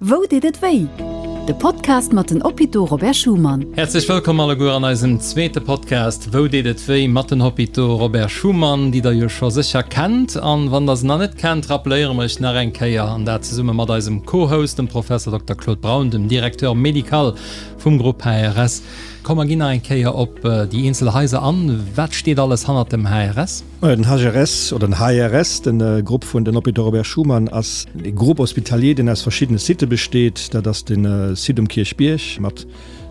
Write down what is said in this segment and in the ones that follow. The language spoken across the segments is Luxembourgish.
Wou deet et wéi? De Podcast mat den Hôpitaux Robert Schuman. Häerzlech wëllkomm alleguer an eisem zweete Podcast Wou deet et wéi? mat den Hôpitaux Robert Schuman, déi der jo scho sécher kennt. An wann der se nach net kennt, rappeléiere mer iech nach eng Kéier, an dat zesumme mat eisem Co-Host, dem Professor Dokter Claude Braun, dem Directeur médical vum Grupp HRS. Komm mer ginn nach eng Kéier op déi eenzel Haiser an. Wat steet alles hannert dem HRS? Majo, den HRS oder den HRS, de Grupp vun den Hôpitaux Robert Schuman, ass e Groupe hospitalier, deen aus verschiddene Sitte besteet. Dat ass de Site um Kierchbierg mat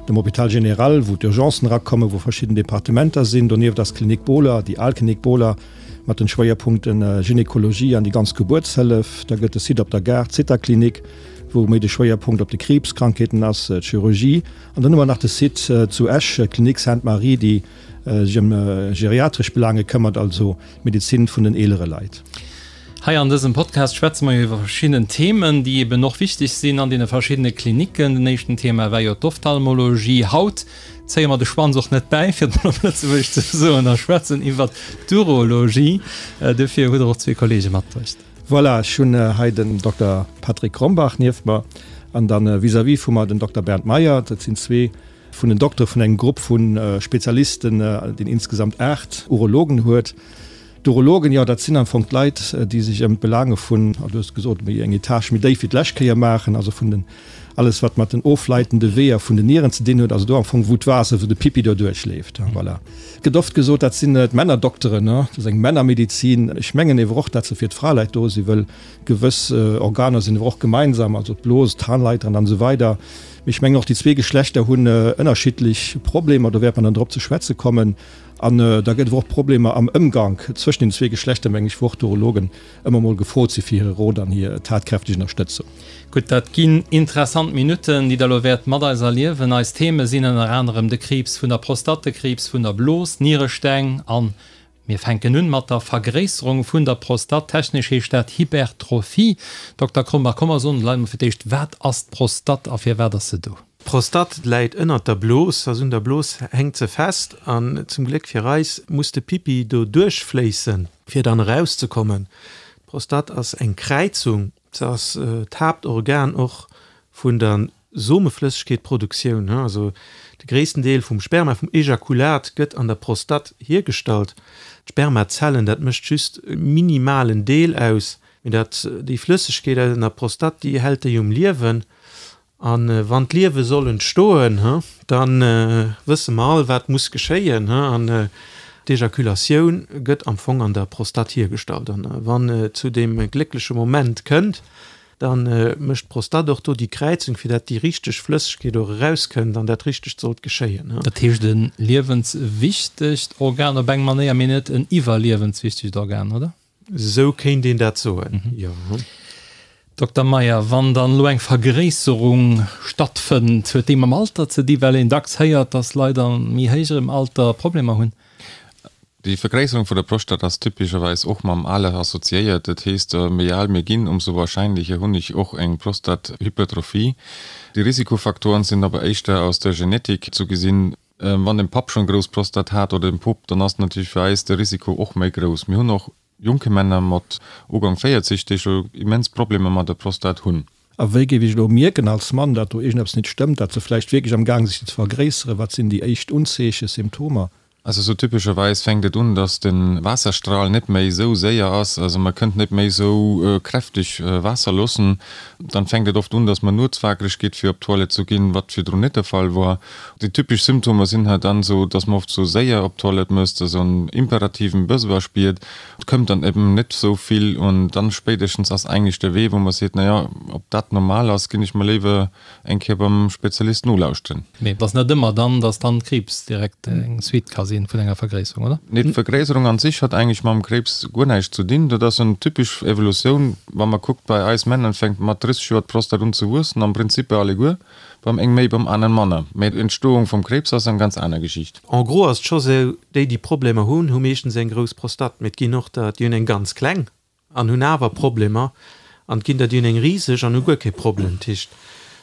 dem Hôpital général, wou d'Urgencen erakommen, wou verschidden Departementer sinn. Donieft ass d'Klinik Bohler, déi al Klinik Bohler, mat den Schwéierpunkte Gynekologie an déi ganz Gebuertshëllef. Da gëtt de Site op der Gare, d'Zithaklinik, wou méi de Schwéierpunkt op de Kriibskrankheeten ass, d'Chirurgie. An dann hu mer nach de Site zu Esch, d'Klinik Sainte-Marie, déi sech ëm geriatresch Belange këmmert, also d'Medezin vun den eelere Leit. Hei an dësem Podcast schwätze mer jo iwwer verschidden Themen, déi eben och wichteg sinn an deene verschiddene Klinicken. Den éischten Thema war jo d'Ophtalmologie. Haut zéie mer de Schwanz och net bäi, fir et mol op Lëtzebuergesch ze soen, a schwätzen iwwert d'Urologie. Dofir hutt Der och zwee Kollege matbruecht. Voilà, ech hunn hei den Dokter Patrick Krombach nieft mer an dann vis-à-vis vu mer den Dokter Bernd Meyer. Dat sinn zwee vun den Doktere vun engem Grupp vu Spezialisten, deen insgesamt 8 Urologen huet. D'Urologen, jo, dat sinn am Fong d'Leit, déi sech ëm d'Belaange vun, du hues gesot, méi eng Etage méi déif wéi d'lescht Kéier maachen, also vun den, alles wat mat den ofleitende Weeër vun den Nieren ze dinn huet, also do am Fong wou d'Waasser, wou de Pipi do duerchleeft. Voilà. Et gëtt oft gesot, dat sinn d'Männerdokteren, dat ass eng Männermedizin. Ech mengen ewer och, dat se fir d'Fraleit do sinn, wëll gewëss Organer sinn ewer och gemeinsam, also d'Blos, d'Harnleiteren an esou weider. Mee ech mengen och déi zwee Geschlechter hunn ënnerschiddlech Problemer, do wäert mer dann drop ze schwätze kommen. An da gëtt et och Problemer am Ëmgank zwëschen den zwee Geschlechter, meng ech, wou och d'Urologen ëmmer mol gefrot si fir hire Rot an hir tatkräfteg Ënnerstëtzung. Gutt, dat ginn interessant Minutten, déi Der elo wäert mat eis erliewen. Eis Theme sinn ënner anerem de Kriibs vun der Prostatt, de Kriibs vun der Blos, Nieresteng an Mir fänken un mat der Vergréisserung vun der Prostatt. Technesch heescht dat Hypertrophie. Dokter Krombach, komm mer soen de Leit mol fir d'éischt, wat ass d'Prostatt a firwat ass se do? D'Prostatt läit ënnert der Blos, also un der Blos hänkt se fest an zum Gléck fir eis muss de Pipi do duerchfléissen, fir dann erauszekommen. D'Prostatt ass eng Kräizung, se ass d'Haaptorgan och vun der Someflëssegkeetproduktioun, also de gréissten Deel vum Sperma, vum Ejakulat gëtt an der Prostatt hiergestallt. D'Spermazellen, dat mécht just e minimalen Deel aus, mee dat, déi Flëssegkeet an der Prostatt, déi hält déi um Liewen. A wann d'Liewe soll entstoen, da wësse mer all, wat muss geschéien. An d'Ejakulatioun gëtt am Fong an der Prostatt hiergestallt. An wann et zu deem gléckleche Moment kënnt, Da mécht d'Prostatt och do déi Kräizung, fir dat déi richteg Flëssegkeet och erauskënnt an dat Richtegt sollt geschéien. Dat heescht e liewenswichtegt Organ op eng Manéier, mee net en iwwerliewenswichtegt Organ, oder? Esou kéint een dat soen, jo. Dokter Meyer, wann dann elo eng Vergréisserung stattfënnt, huet déi mam Alter ze di, well een dacks héiert, dass Leit a méi héijerem Alter Problemer hunn? Déi Vergréisserung vun der Prostat ass typescherweis och mam Aler assoziéiert. Dat heesst, méi al mir ginn, ëmsou warscheinlecher hunn ech och eng Prostathypertrophie. Déi Risikofaktoren sinn awer éischter aus der Genetik zu gesinn. Wann den Papp schonn grouss Prostat hat oder den Pop, dann ass natierlech fir eis de Risiko och méi grouss. Mir hunn och jonke Männer mat Ugank 40, déi scho immens Problemer mat der Prostat hunn. A wéi géif ech elo mierken als Mann, dat do iergendeppes nit stëmmt, dat se vläicht wierklech am Gaang si sech ze vergréisseren? Wat sinn déi éischt Unzeechen, Symptomer? Also sou typescherweis fänkt et un, dass de Waasserstral net méi sou séier ass, also man kënnt net méi sou kräfteg Waasser loossen. Dann fänkt et oft un, dass man nuets wakereg geet fir op d'Toilette zu ginn, wat virdrun net de Fall wor. Déi typesch Symptomer sinn hei dann sou, dass man oft sou séier op d'Toilette muss, dass en imperativen Besoin spiert, et këmmt dann eben net sou vill an dann spéidestens ass eigentlech de Wee wou man seet, naja, ob dat normal ass, ginn ech mer léiwer Eng Kéier beim Spezialist nolauschteren. Mee et ass net ëmmer dann, dass dann Kriibs direkt eng Suite ka sinn vun enger Vergréisserung, oder? Nee, d'Vergréisserung an sich hat eigentlech mam Kréibs guer näischt zu dinn. Dat ass en typesch Evolutioun. Wa mer kuckt, bei eis Männer fänkt mat 30 Joer d'Prostat un ze wuessen, am Prinzip bei alleguer, beim eng méi, beim aneren manner. Mee d'Entstoung vum Kréibs ass eng ganz aner Geschicht. En gros ass et scho sou, déi déi Problemer hunn, hu meeschtens eng grouss Prostate, mee et ginn och der, déi hunn eng ganz kleng. An hunn awer Problemer, an et ginn der, déi hunn eng riseg an hu guer kee Problem. Dat heescht,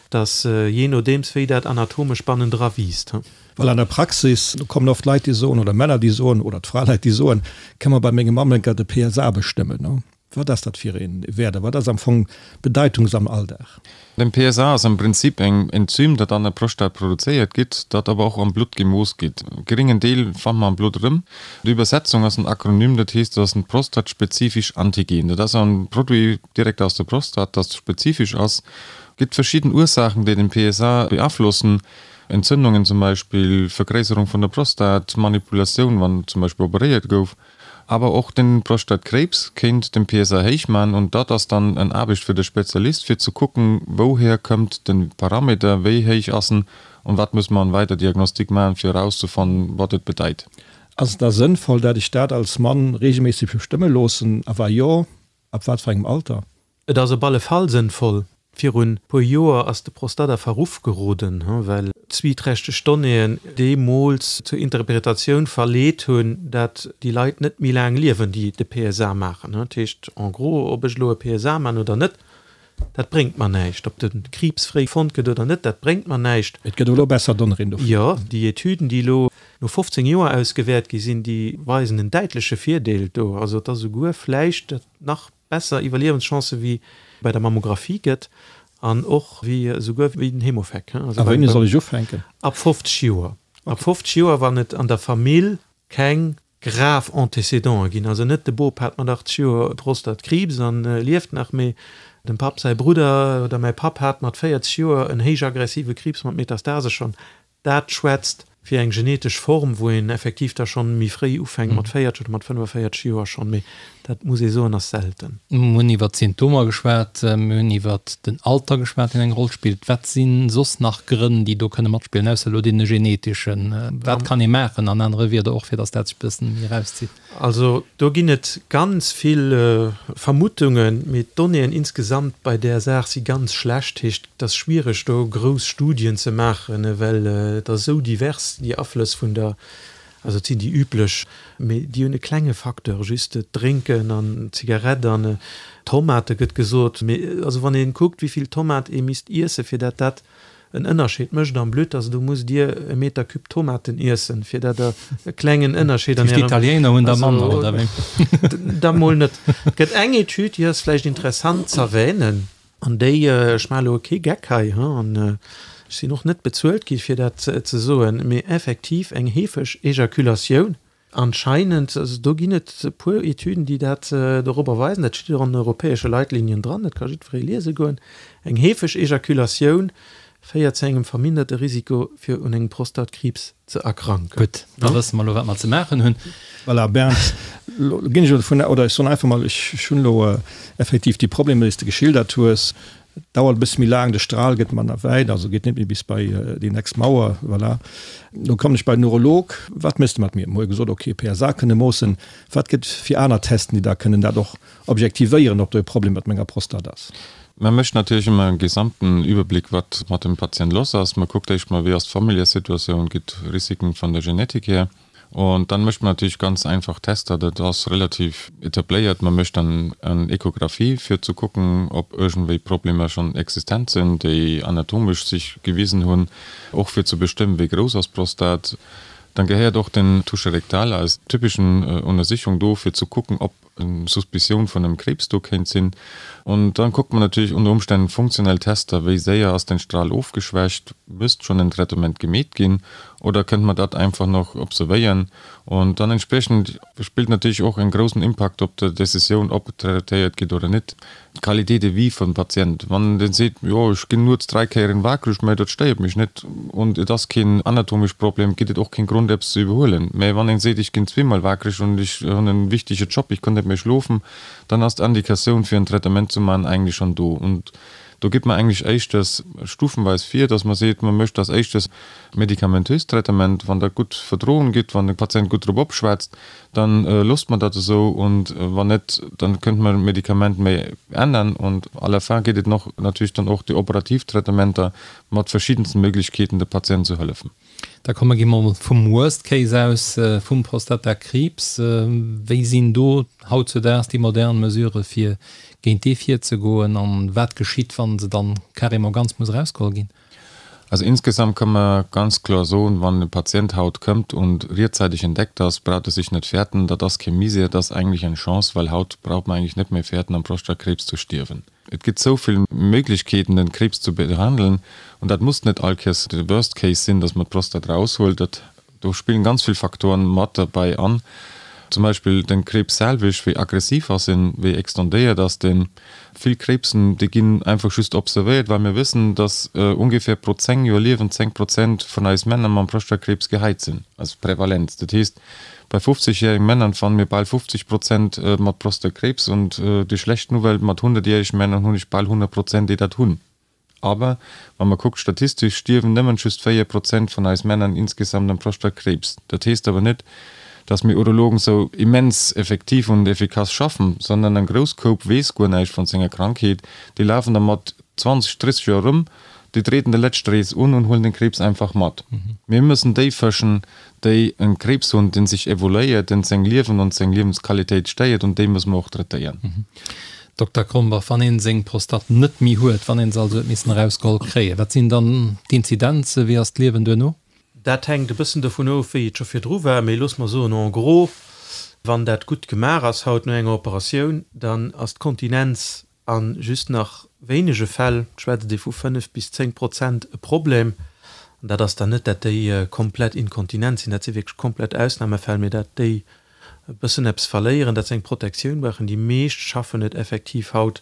et ass jee nodeems, wéi dat anatomesch bannendra wiisst. Well an der Praxis, do kommen oft Leit, déi soen, oder Männer, déi soen, oder d'Fraleit, déi soen, Kënne mer bei mengem Mammenker de PSA bestëmmen? Wat ass dat fir ee Wäert a wat ass am Fong d'Bedeitung am Alldag? Den PSA ass am Prinzip eng Enzym, dat an der Prostat produzéiert gitt, dat awer och am Blutt gemooss gitt. E geringen Deel fannt mer am Blutt erëm. D'Übersetzung ass en Akronym, dat heesst, et ass en prostatspezifisch Antigen. Dat ass en Produit direkt aus der Prostat, dat spezifesch ass. Gitt verschidden Ursaachen, déi den PSA beaflossen, Entzündungen zum Beispill, Vergréisserung vun der Prostat, Manipulatioun, wann zum Beispill operéiert gouf. Awer och den Prostatkrebs kéint den PSA héich man und dat ass dann en Aarbecht fir de Spezialist fir ze kucken wouhier këmmt den Parameter, wéi héich ass en und wat muss mer an weider Diagnostik man fir erauszefannen wat et bedeit. Ass et da sënnvoll dat ech dat als Mann regelméisseg bestëmme loossen a wa jo, ab wat fir engem Alter? Et ass op alle Fall sënnvoll. Virun puer Joer ass de Prostata a Verruff geroden, well zwieträchteg Donnéeën deemools zur Interpretatioun verleet hunn, dat déi Leit net méi laang liewen, déi de PSA maachen. Dat heescht en gros, ob ech elo e PSA maachen oder net, dat bréngt mer näischt. Ob de Kriibs fréi fonnt gëtt oder net, dat bréngt mer näischt. Et gëtt elo besser Donnéeën dofir. Jo, déi Etüden, déi elo no 15 Joer ausgewäert gi sinn, déi weisen en däitleche Virdeel do. Also et ass esouguer vläicht nach besser Iwwerliewenschancë wéi bei der Mammographie gëtt an och wéi esouguer wéi den Hemofec. A wéini soll ech ufänken? Ab 50 Joer. Ab 50 Joer, wann et an der Famill keng grav Antécédenten ginn, also net de Bop hat mat 80 Joer Prostatkriibs an lieft nach, mee dem Papp säi Brudder oder mäi Papp hat mat 40 Joer en héich aggressive Kriibs mat Metastase schonn, Dat schwätzt fir eng genetesch Form, wou een effektiv da schonn méi fréi ufänkt, mat 40 oder mat 45 Joer schonn, mee dat muss ee soen, ass selten. Mir hunn iwwert d'Symptomer geschwat, mir hunn iwwert den Alter geschwat, deen eng Roll spillt. Wat si soss nach Grënn, déi do kënne matspillen, ausser elo dee geneteschen? Wat kann ee maachen, an anere Wierder och, fir datt dat sech e bëssen méi erauszitt? Also do ginn et ganz vill Vermuttungen, mee d'Donnéeën insgesamt bei där Saach si ganz schlecht. Heescht, et ass schwiereg do grouss Studien ze maachen, well et ass esou divers, déi Aflëss vun der, also et sinn déi üblech, mee déi hunn e klenge Facteur, just d'Drénken an d'Zigarett an Tomate gëtt gesot. Mee also wann ee kuckt, wéi vill Tomat ee misst iesse fir dat dat en Ënnerscheed mécht am Blutt, also do musst Dir e Meter Cube Tomaten iessen, fir dat Der e klengen Ënnerscheed an Ärem. D'Italiener hunn der manner, oder wéi? Da mol net. Et gëtt eng Etüd, déi ass vläicht interessant z'erwänen, an déi, ech maache elo kee Geck hei, an ech sinn och net bezuelt gi fir dat ze soen, mee effektiv eng heefeg Ejakulatioun Anscheinend, also do ginn et e puer Etüden, déi dat dorobber weisen, dat steet och an den europäesche Leitlinien dran, dat ka jiddweree liese goen, eng heefeg Ejakulatioun féiert zu engem verminderte Risiko fir un engem Prostatkriibs ze erkranken. Gutt, da wësse mer elo wat mer ze maachen hunn. Voilà, Bernd, elo ginn ech elo dovun, oder ech soen einfach mol, ech hunn elo effektiv déi Problemer, déi s de geschildert hues, Et dauert e bësse méi laang, de Stral gëtt manner wäit, also geet net méi bis bei déi nächst Mauer, voilà. Lo kommen ech bei den Urolog, wat méchs de mat mir? Mir hu gesot, ok, PSA kënne moossen, wat gëtt fir aner Testen, déi da kënnen dat och objektivéieren, ob do e Problem mat menger Prostat ass? Mä mécht natierlech ëmmer e gesamten Überblick, wat mat dem Patient loss ass. Mer kuckt éischt mol, wéi ass d'Familljesituatioun, gitt Risiken vun der Genetik hier. Und dann mécht man natierlech ganz einfach Tester, dat ass relativ etabléiert. Man mécht dann eng Echographie fir ze kucken, ob iergendwéi Problemer schonn existent sinn, déi anatomesch sech gewisen hunn, och fir ze bestëmmen, wéi grouss ass d'Prostat. Dann gehéiert och den Toucher rectal als typeschen Untersichung do, fir ze kucken, ob eng Suspicioun vun engem Krebs do kéint sinn. Und dann kuckt man natierlech unter Umständen funktionell Tester, wéi séier ass den Strahl ofgeschwächt, müsst schonn en Traitement gemeet ginn oder kënnt man dat einfach nach observéieren. Und dann entsprechend spillt natierlech och en groussen Impakt op der Decisioun, ob traitéiert gitt oder net, d'Qualité de vie vum Patient. Wann deen seet, jo ech ginn nuets 3 Kéieren wakereg, mä dat stéiert mech net und et ass keen anatomesch Problem, gitt et och keen Grond eppes ze iwwerhuelen. Mä wann een seet, ech ginn zweemol wakereg und ech hunn en wichtege Job, ech kann net méi schlofen, dann ass d'Indikatioun fir en Traitement ze man eigentlech schonn do. Und do geet mer eigentlech éischters stufenweis vir, dass mer seet, mer mécht als éischtes medikamentöst Traitement, wann dat gutt verdroen gitt, wann de Patient gutt drop opschwätzt, Dann loosst mer dat esou und wann net, dann kënnt mer d'Medikament méi ännern und à la fin geet et noch natierlech dann och déi operativ Traitementer mat verschiddensten Möglichkeeten de Patient ze hëllefen. Da komme gi mer vum Worst Case aus, vum Prostatakriibs. Wéi sinn do hautzudaags déi modern Mesurë fir géint dee virzegoen an wat geschitt, wa se dann carrément ganz muss erausgeholl ginn? Also insgesamt kann man ganz kloer soen, wann e Patient haut këmmt und rechtzeitig entdeckt ass, braucht e sich net fäerten, dat ass kee Misär, dat ass eigentlich eng Chance, well haut braucht man eigentlich net méi fäerten am Prostatakriibs zu stierwen. Et gëtt sou vill Méiglechkeeten den Kriibs zu behandeln und dat muss net all Kéiers de Worst Case sinn, dass man d'Prostat raushuelt. Dat Do spillen ganz vill Faktoren mat derbäi an, zum Beispill den Kriibs selwech, wéi aggressiv ass en, wéi extendéiert ass den. Vill Kriibsen déi ginn einfach just observéiert, well mir wëssen, dass ungefähr pro 10 Joer Liewen 10 Prozent vun eis Männer mam Prostatakriibs gehäit sinn, also Prävalenz. Dat heesst bei 50 jähregen Männern fannen mir bal 50 Prozent mat Prostatakriibs und déi schlecht Nouvelle, mat 100 jähregen Männern hunn ech bal 100 Prozent déi dat hunn. Aber wa mer kuckt, statistesch stierwen nëmmen just 4 Prozent vun eis Männern insgesamt am Prostatakriibs. Dat heesst awer net, dass mir Urologen sou immens effektiv und efficace schaffen, sondern en grouss Koup weess guer näischt vun senger Krankheet. Déi lafen da mat 20, 30 Joer erëm, déi treten de lescht Rees un und huelen den Kriibs einfach mat. Mir müssen déi fëschen, déi en Kriibs hunn, deen sech evoluéiert, deen seng Liewen und seng Liewensqualitéit stéiert, und déi müssen mer och traitéieren. Dokter Krombach, wann een seng Prostate net méi huet, wann een se also huet missen erausgeholl kréien, wat sinn dann d'Inzidenzen, wéi ass d'Liewen duerno? Dat hänkt e bëssen dovun of, wéi et scho virdru war, mee looss mer soen, en gros, wann dat gutt gemaach ass haut no enger Operatioun, dann ass d'Kontinenz a just nach wéinege Fäll, et schwätzt ee vu 5 bis 10 Prozent, e Problem. An dat ass dann net, dat déi komplett inkontinent sinn, dat si wierklech komplett Ausnamefäll, mee dat déi e bëssen eppes verléieren, dat se eng Protektioun brauchen. Déi meescht schaffen et effektiv haut,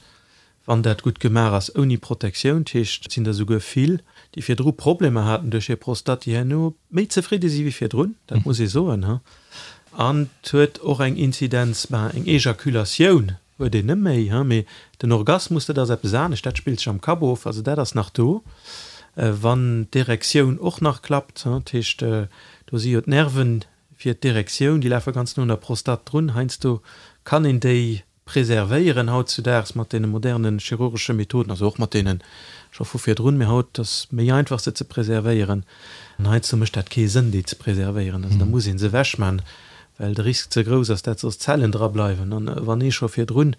wann dat gutt gemaach ass, ouni Protektioun. Dat heescht, et sinn der souguer vill, déi virdru Problemer haten duerch hir Prostate, déi herno méi zefridde si wéi virdrun, dat muss ee soen. An et huet och eng Inzidenz, ben, eng Ejakulatioun huet een net méi, mee den Orgasmus, dat ass eppes anescht, dat spillt sech am Kapp of, also dat ass nach do, wann d'Erektioun och nach klappt. Dat heescht, do si jo d'Nerven fir d'Erektioun, déi lafe ganz no un der Prostate drun. Heiansdo kann een déi preservéieren hautzudaags mat deene moderne chirurgesche Methoden, also och mat deene scho vu virdrun, mee haut ass méi einfach se ze preservéieren. An heiansdo mécht dat kee Sënn déi ze preservéieren, also da muss ee se ewechman, well de Risk ze grouss ass, dat soss Zellen dra bleiwen. An wann ee scho virdrun,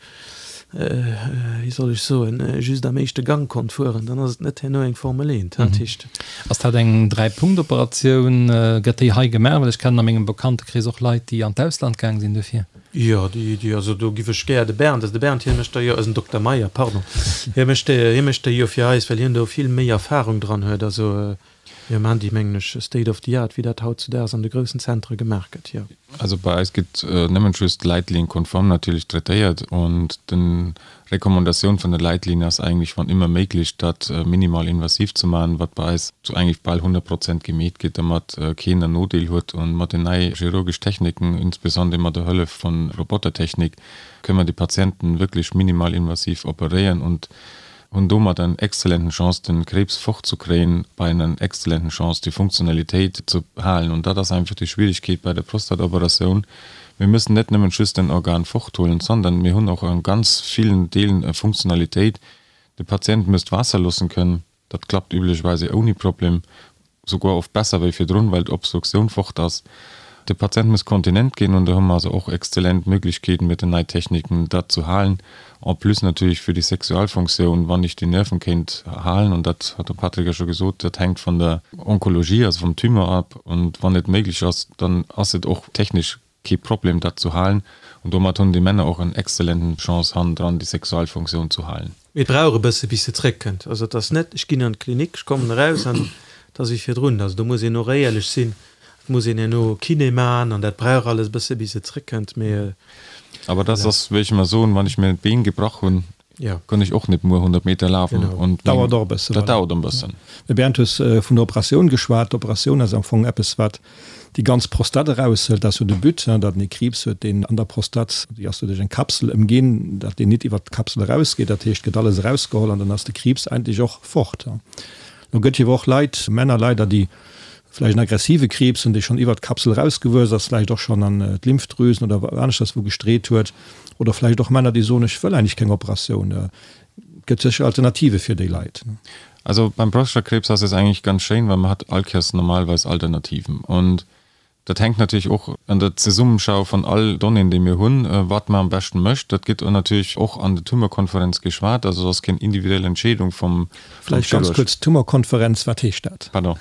wéi soll ech soen, just am éischte Gang konnt fueren, dann ass et net herno eng Formel 1. Dat heescht. Ass dat eng Dräi-Punkt-Operatioun? Gëtt déi hei gemaach? Well ech kennen a mengem Bekanntekrees och Leit, déi an d'Ausland gaang sinn dofir. Jo, déi, déi, also do giff ech gär de Bernd, also de Bernd, hie mécht der jo, eisen Dokter Meyer, pardon, hie mécht déi, hie mécht déi jo fir eis, well hien do vill méi Erfahrung dran huet. Also mir maachen déi, mengen ech, state of the art, wéi dat hautzudaags an de groussen Zentre gemaach gëtt, jo. Also bei eis gëtt nëmmen just Leitlinien-konform natierlech traitéiert und den Recommandatioun vun der Leitlinie ass eigentlech wann ëmmer méiglech dat minimal invasiv ze maachen, wat bei eis zu eigentlech bal 100 Prozent gemeet gëtt, domat keen en Nodeel huet. Und mat den nei chirurgesch Techniken, insbesondere mat der Hëllef vun Robotertechnik, kënnen mer déi Patienten wierklech minimal invasiv operéieren und hunn domat eng exzellenten Chance den Krebs fortzukréien, bei einer exzellenten Chance déi Funktionalitéit ze halen. Und dat ass einfach déi Schwierigkeet bei der Prostatoperatioun, Mir müssen net nëmmen just en Organ forthuelen, sondern mir hunn och an ganz villen Deelen e Funktionalitéit. De Patient müsst Waasser loossen kënnen. Dat klappt üblicherweise ouni Problem, souguer oft besser wéi virdrun, well d'Obstruktioun fort ass. De Patient muss kontinent ginn und do hu mer also och exzellent Möglichkeeten mit den nei Techniken dat zu halen. En plus natierlech fir déi Sexualfunktioun, wann ech déi Nerven kéint halen, und dat hat de Patrick jo scho gesot, dat hänkt vun der Onkologie, also vum Tumeur ab, und wann et méiglech ass, dann ass et och technesch kee Problem dat zu halen, und domat hunn déi Männer och en exzellenten Chance hannendran déi Sexualfunktioun zu halen. Mee et brauch e bësse bis se zréckkënnt. Also et ass net, ech ginn an d'Klinik, ech kommen eraus an et ass wéi virdrun. Also do muss een och éierlech sinn, et muss een herno Kiné man an dat brauch alles e bësse bis et zréckkënnt. Mee. Awer dat ass, wéi ech ëmmer soen, wann ech mir d'Been gebrach hunn, Ja. Kann ech och net muer 100 Meter lafen. Genau. Und dauert och e bëssen. Dat dauert en bëssen. Mee Bernd, hues vun der Operatioun geschwat. D'Operatioun ass am Fong eppes, wat déi ganz Prostate eraushëlt. Dat ass jo de But, datt en ee Kriibs huet, deen an der Prostate, déi ass jo duerch eng Kapsel ëmginn, datt deen nit iwwert d'Kapsel erausgeet. Dat heescht, et gëtt alles erausgeholl an dann ass de Kriibs eigentlech och fort. Lo gëtt jo awer och Leit, Männer leider, déi vläicht en aggressive Kriibs hunn, dee schonn iwwert d'Kapsel erausgewuess ass, vläicht och schonn an d'Lymphdrüsen oder aneschters wou gestreet huet, oder vläicht och Männer, déi soen, ech wëll eigentlech keng Operatioun. Et gëtt sécher Alternative fir déi Leit. Also beim Prostatakrebs ass es eigentlich ganz schéin, well man hat allkéiers normalerweis Alternativen. Und. Dat hänkt natierlech och an der Zesummenschau von all Donnéeën, déi mir hunn, wat mer am beschten mécht. Dat gëtt natierlech och an der Tumorkonferenz geschwat. Also et ass keng individuell Entscheedung vum Vläicht ganz Chirurg. kuerz, Tumorkonferenz, wat heescht dat? Pardon.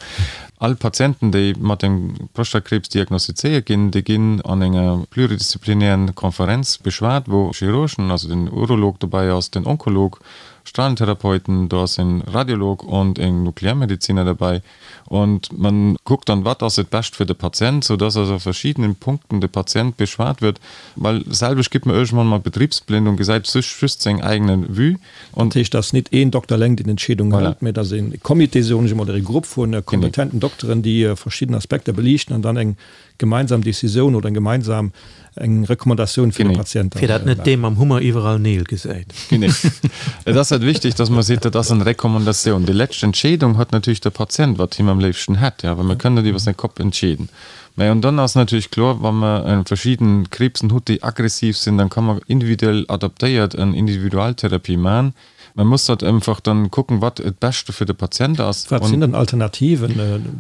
All Patienten, déi mat engem Prostatakriibs diagnostizéiert ginn, déi ginn an enger pluridisziplinären Konferenz beschwat, wou Chirurgen, also den Urolog dobäi ass, den Onkolog, Strahlentherapeuten, do ass en Radiolog und en Nuklearmediziner dabei. Und man kuckt dann, wat ass et bescht fir de Patient, sou dass also a verschiedenen Punkten de Patient beschwat wird, well selwecht gitt mer iergendwann mol betriebsblind und gesäit sech just seng eigene Vue. Und. Dat heescht, dass nit een Dokter eleng déi Entscheedung hëlt, mä dass e Comité, soen ech emol, oder e Grupp vu kompetenten Dokteren, déi verschidden Aspekter beliichten an dann eng gemeinsam Decisioun oder eng gemeinsam eng Recommandatioun fir de Patient dann Fir dat net dee mam Hummer iwwerall Neel gesäit. Genee. Et ass halt wichtig, dass mer seet, dat ass eng Recommandatioun. Déi lescht Entscheedung huet natierlech de Patient, wat him am léifsten hätt, jo, well mir kënnen net iwwer säi Kopp entscheeden. Mä und dann ass natierlech kloer, wa mer verschidden Kriibsen hutt, déi aggressiv sinn, dann ka mer individuell adaptéiert en Individualtherapie man. Man muss dat einfach dann kucken, wat et Beschte fir de Patient ass. Wat sinn dann Alternativen?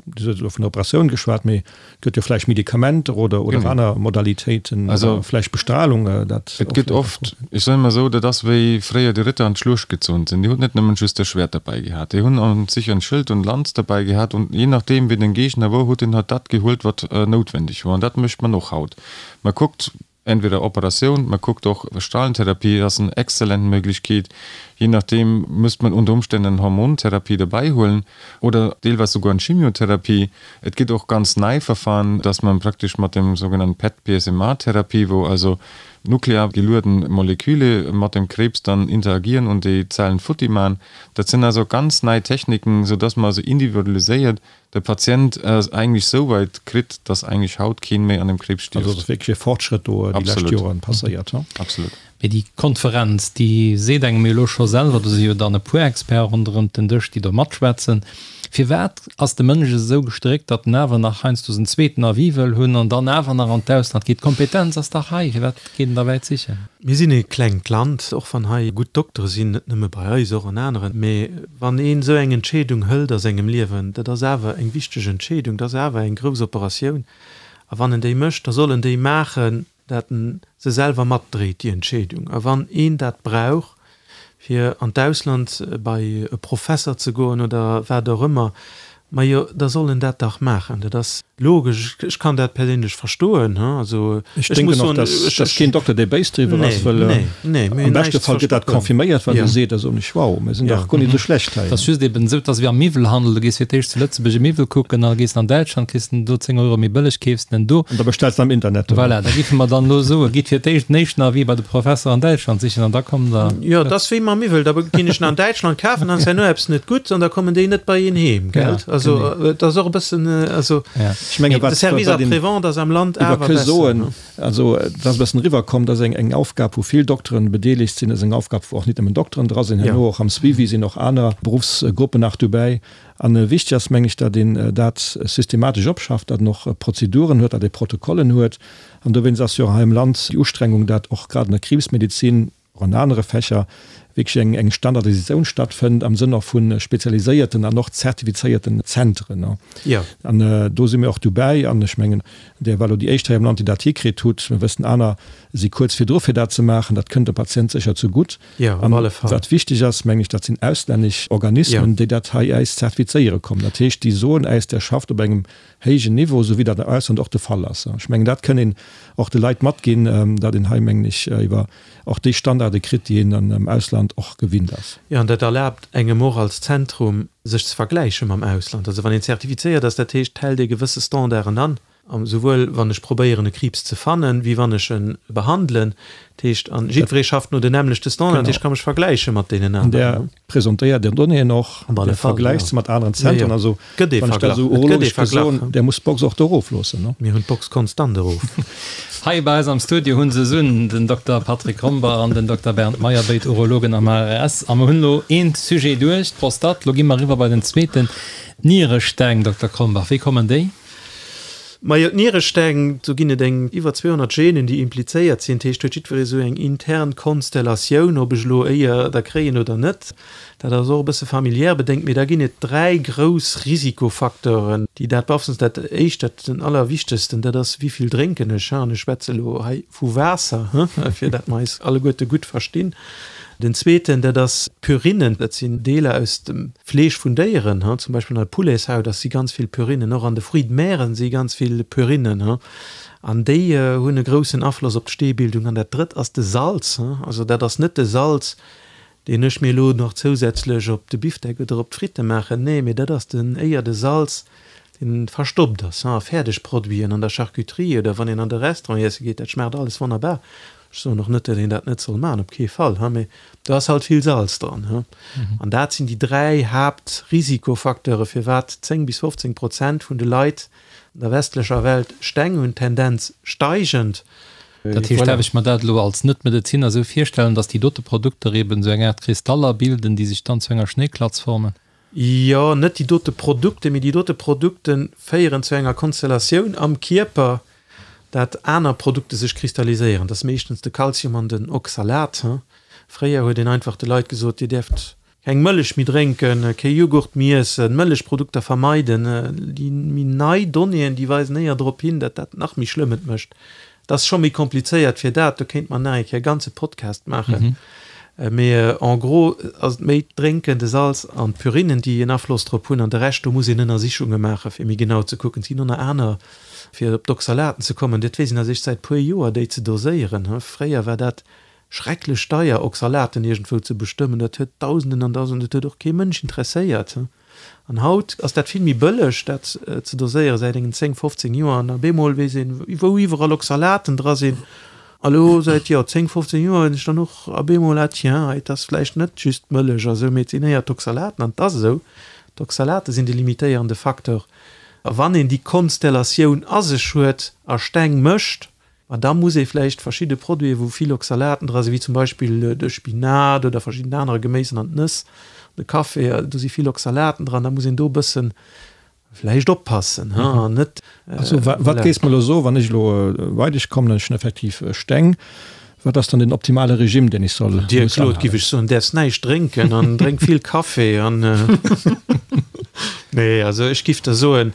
Dir hutt elo vun der Operatioun geschwat, mee et gëtt jo vläicht Medikamenter oder oder aner Modalitéiten oder vläicht Bestrahlung, dat Et gëtt oft, ech soen emol esou, dat ass wéi fréier déi Ritter an d'Schluecht gezunn sinn, déi hunn net nëmmen just e Schwert derbäi gehat, déi hunn an sich en Schëld und Lanz derbäi gehat und je nachdeem wéi den Gegner wor, huet en halt dat gehuelt wat noutwendeg wor an dat mécht man och haut. Man kuckt, Entweder Operatioun, man kuckt och Strahlentherapie ass en exzellent Möglichkeet, je nachdem müsst man unter Umständen en Hormontherapie derbäi huelen oder deelweis souguer en Chemiotherapie. Et gëtt och ganz nei Verfahren, dass man praktesch mat dem sougenannten PET-PSMA-Therapie, wou also nuklear gelueden Moleküle mat dem Krebs dann interagieren und déi Zellen futti man. Dat sinn also ganz nei Techniken, sou dass man also individualiséiert de Patient eigentlech sou weit kritt, dass eigentlech haut keen méi an dem Kriibs stierft. Also et ass wierklech e Fortschrëtt do déi lescht Joren passéiert, he? Absolut. Mee déi Konferenz, déi seet engem jo elo scho selwer, do si jo dann e puer Experten ronderëm den Dësch, déi do matschwätzen. Firwat ass de Mënsch esou gestréckt, datt en awer nach heiansdo en zweeten Avis wëll hunn an dann awer nach an d'Ausland geet? D'Kompetenz ass dach hei, firwat geet en da wäit sichen? Mir sinn e klengt Land, och wann hei gutt Doktere sinn, net nëmme bei eis, och an aneren. Mee wann een esou eng Entscheedung hëlt a sengem Liewen, dat ass awer eng wichteg Entscheedung, dat ass awer eng grouss Operatioun, a wann en déi mécht, da soll en déi maachen, dat en se selwer matdréit, déi Entscheedung. A wann een dat brauch, fir an d'Ausland bei e Professer ze goen oder wat och ëmmer, majo, da soll en dat dach maachen. Dat ass logesch. Ech kann dat perséinlech verstoen. Also ech muss soen, ech. Ech denken och, dass keen Dokter, dee béis driwwer ass, well am beschte Fall gëtt dat confirméiert, wat e seet. Da soen ech, wow, mir sinn dach guer net esou schlecht hei. Et ass just eben esou, et ass wéi am Miwwelhandel, du gees fir d'éischt zu Lëtzebuerg e Miwwel kucken, da gees de an Däitschland, kriss den do 10 Euro méi bëlleg, keefs den do. An da bestells de am Internet. Voilà, da géife mer dann elo soen, gitt fir d'éischt den éischten Avis bei de Professer an Däitschland sichen an da kommt der. Jo, et ass wéi mam Miwwel, da ginn ech en an Däitschland kafen, dann ass herno eppes net gutt an da kommen déi net bei een heem, gell? Also et ass och e bëssen, also Ech menge de wat Service wat een après-vente ass am Land iwwer awer ke besser, soen, ne? also et ass e bëssen eriwwerkomm, dat ass eng eng Aufgab wou vill Dokteren bedeelegt sinn, dat ass eng Aufgab wou och nit nëmmen Dokteren dra sinn, herno och am Suivi sinn och aner Beruffsgruppen nach dobäi. An wichteg ass meng ech, datt een dat systematesch opschafft, datt en och Prozeduren huet, datt ee Protokollen huet. An dowéinst ass jo och hei am Land déi Ustrengung, datt och grad an der Kriibsmedizin, och an anere Fächer, wierklech eng eng Standardisatioun stattfënnt am Sënn och vu spezialiséierten an och zertifizéierten Zentren. An do si mir och dobäi. An ech mengen, Där war elo déi éischt hei am Land, déi dat hikritt hutt. Mir wëssen, aner si kuerz virdru fir dat ze maachen. Dat kënnt dem Patient sécher zegutt. An wat wichteg ass, mengen ech, dat sinn auslännesch Organismen, déi dat hei äis zertifizéiere kommen. Dat heescht, déi soen äis, Der schafft op engem héijen Niveau, esou wéi dat am Ausland och de Fall ass. Ech mengen, dat kënn een och de Leit matginn, datt een hei, mengen ech, iwwer och déi Standarde kritt, déi een am Ausland och gewinnt ass. Jo, an dat erlaabt engem och als Zentrum, sech ze vergläiche mam Ausland. Also wann een zertifizéiert ass, dat heescht, hält ee gewësse Standarden an, souwuel wann ech probéieren e Kriibs ze fannen, wéi wann ech e behandelen. Dat heescht, an jiddweree schafft no den nämmlechte Standarden, dat heescht, ech ka mech vergläiche mat deenen aneren. Presentéiert Är Donnéeën och, Dir vergläicht se mat aneren Zentren. Also, wann ech dat esou urologesch ka soen, Där musst d'Box och do erofloossen, ne? Mir hunn d'Box konstant erof. Hei bei eis am Studio hu se sun den Dokter Patrick Rombach an den Dokter Bernd Meyer, béid Urologen am HRS. A mer hunn elo een Sujet duerch, d'Prostate. Lo gi mer eriwwer bei den zweeten, d'Nieresteng. Dokter Krombach, wéi kommen déi? Majo, d'Nieresteng, do ginn et eng iwwer 200 Genen, déi implizéiert sinn. Dat heescht, huet jiddweree sou eng intern Konstellatioun, ob ech elo éier der kréien oder net. Dat ass och e bësse familiär bedéngt. Mee da ginn et dräi grouss Risikofacteuren, déi dat beaflossen. Dat éischt, dat den allerwichtegsten, dat ass, wéi vill drénken ech? An ech schwätze elo hei vu Waasser, fir dat mer eis alleguerte gutt verstinn. Den zweeten, dat ass d'Purinen. Dat sinn Deeler aus dem Fleesch vun Déieren, zum Beispill an der Pouletshaut ass si ganz vill Purinen, och an de Fruits de mer si ganz vill Purinen, an déi hunn e groussen Afloss op d'Steebildung. An dat drëtt ass de Salz. Also dat ass net de Salz, deen ech mir elo nach zousätzlech op de Bifdeck oder op d'Fritte maachen, nee, mee dat ass den éier de Salz, deen verstoppt ass a Fäerdegproduiten, an der Charcuterie oder wann een an de Restaurant iesse geet, dat schmaacht alles wonnerbar. Ech soen och net, datt een dat net soll maachen, op kee Fall, mee do ass halt vill Salz dran. An dat sinn déi dräi Haaptrisikofacteure firwat 10 bis 15 Prozent vun de Leit an der westlecher Welt Steng hunn, Tendenz steigend. Dat heescht, däerf ech mer dat elo als Net-Medeziner esou virstellen, datt déi dote Produkter eben esou eng Aart Kristaller bilden, déi sech dann zu enger Schnéiklatz formen? Jo, net déi dote Produkte, mee déi dote Produkte féieren zu enger Konstellatioun am Kierper, dat aner Produkte sech kristalliséieren. Dat ass meeschtens de Kalzium an den Oxalat. Fréier huet een einfach de Leit gesot, Dir däerft keng Mëllech méi drénken, kee Jughurt méi iessen, Mëllechprodukter vermeiden. Déi méi nei Donnéeën, déi weisen éier drop hin, dat dat nach méi schlëmm et mécht. Et ass scho méi komplizéiert fir dat, do kéint mer nach eng Kéier e ganze Podcast maachen. Mee en gros ass et méi d'Drénken, de Salz an d'Purinen, déi en Afloss drop hunn. An de Rescht, do muss een Ënnersichunge maachen, fir méi genau ze kucken. Et ginn och nach aner, fir op d'Oxalaten ze kommen, dat weess een eréischt säit puer Joer, déi ze doséieren. Fréier war dat schrecklech deier, Oxalaten iergendwou ze bestëmmen. Dat huet Dausenden an Dausenden, dat huet och kee Mënsch interesséiert. An haut ass dat vill méi bëlleg, dat ze doséieren, säit engen 10, 15 Joer. An op eemol weess een, wou iwwerall Oxalaten dra sinn. A lo säit, jo, 10, 15 Joer hunn ech dann och op eemol, ah tiens, et ass vläicht net just d'Mëllech a sou, mee et sinn éier d'Oxalaten. An et ass esou, d'Oxalate sinn de limitéierende Facteur. A wann een déi Konstellatioun a sech huet a Steng mécht, Ma da muss ee vläicht verschidde Produiten, wou vill Oxalaten dra sinn, wéi zum Beispill de Spinat oder verschidden anere Geméisen an d'Nëss, de Café, do si vill Oxalaten dran, da muss een do e bësse vläicht oppassen an net. Also wat géifs mer elo soen, wann ech elo bei dech kommen an ech hunn effektiv Steng, wat ass dann den optimale Regime, deen ech soll Dir Claude, giff ech soen, däerfs näischt drénken an drénk vill Café an. Nee, also ech giff der soen,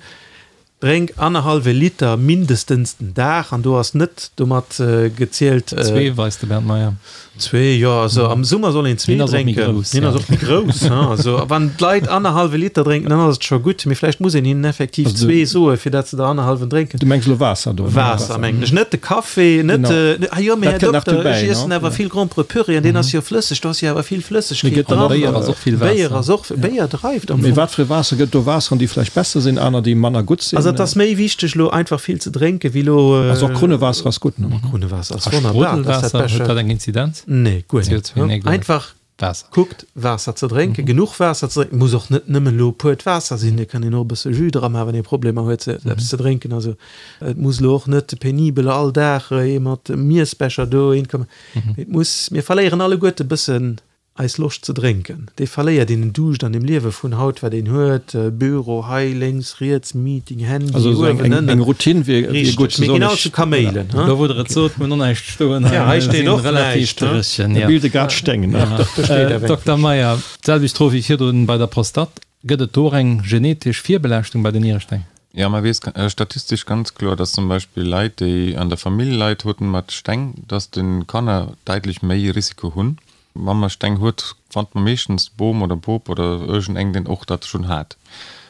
Drénk annerhallwe Liter mindestens den Dag, an do ass net domat gezielt. Zwee, weist de Bernd Meyer. Zwee, jo, also am Summer soll een zwee drénken. Hien ass och méi grouss. Also wann d'Leit annerhallwe Liter drénken, dann ass et scho gutt, mee vläicht muss een hinnen effektiv zwee soe fir dat se der annerhallwen drénken. Du mengs elo Waasser do? Waasser mengen ech, net de Café, net de, ah jo, mee Här Dokter, ech iessen awer vill Gromperepüree an deen ass jo flësseg, do ass jo awer vill Flëssegkeet dran. Béier ass och vill Waasser. Béier ass och, Béier dreift am Fong. Mee wat fir e Waasser? Gëtt do Waasseren, déi vläicht besser sinn, aner, déi manner gutt sinn? Also et ass méi wichteg elo einfach vill ze drénken, wéi elo. Also och Krunnewaasser ass gutt, ne? Krunnewaasser ass wonnerbar, dat ass dat Beschte. Huet dat eng Inzidenz? Nee, guer net. Nee, guer net. Einfach Waasser. Kuckt Waasser ze drénken, genuch Waasser ze drénken, muss och net nëmmen elo puert Waasser sinn, et kann een och e bësse Jus dra maachen, wann ee Problemer huet se eppes ze drénken. Also et muss elo och net penibel all Dag ee mat Miessbecher dohin kommen, mee et muss, mir verléieren alleguerte bëssen eis Loscht ze drénken, déi verléiert een, den Duuscht an dem Liewe vun haut, wat een huet, Büro hei, lénks, riets, Meeting, Handy, Also esou eng, eng, eng Routine wier, wier gutt. Richteg, mir ginn all zu Kaméilen. Do wou der et sot, mir hunn och näischt stoen hei. Ja, hei steet och näischt. Dréchen, ja. Bilde grad Steng, ne? Doch, do steet eweng. Dokter Meyer, d'selwecht Fro wéi virdrun bei der Prostate. Gëtt et do och eng genetesch Virbelaaschtung bei den Nieresteng? Ja, man weess statistesch ganz kloer, dass zum Beispill Leit, déi an der Famill Leit haten mat Steng, dass de Kanner däitlech méi Risiko hunn. Wa mer Steng huet, fannt mer meeschtens Bom oder Bop oder iergendeng, deen och dat schonn hat.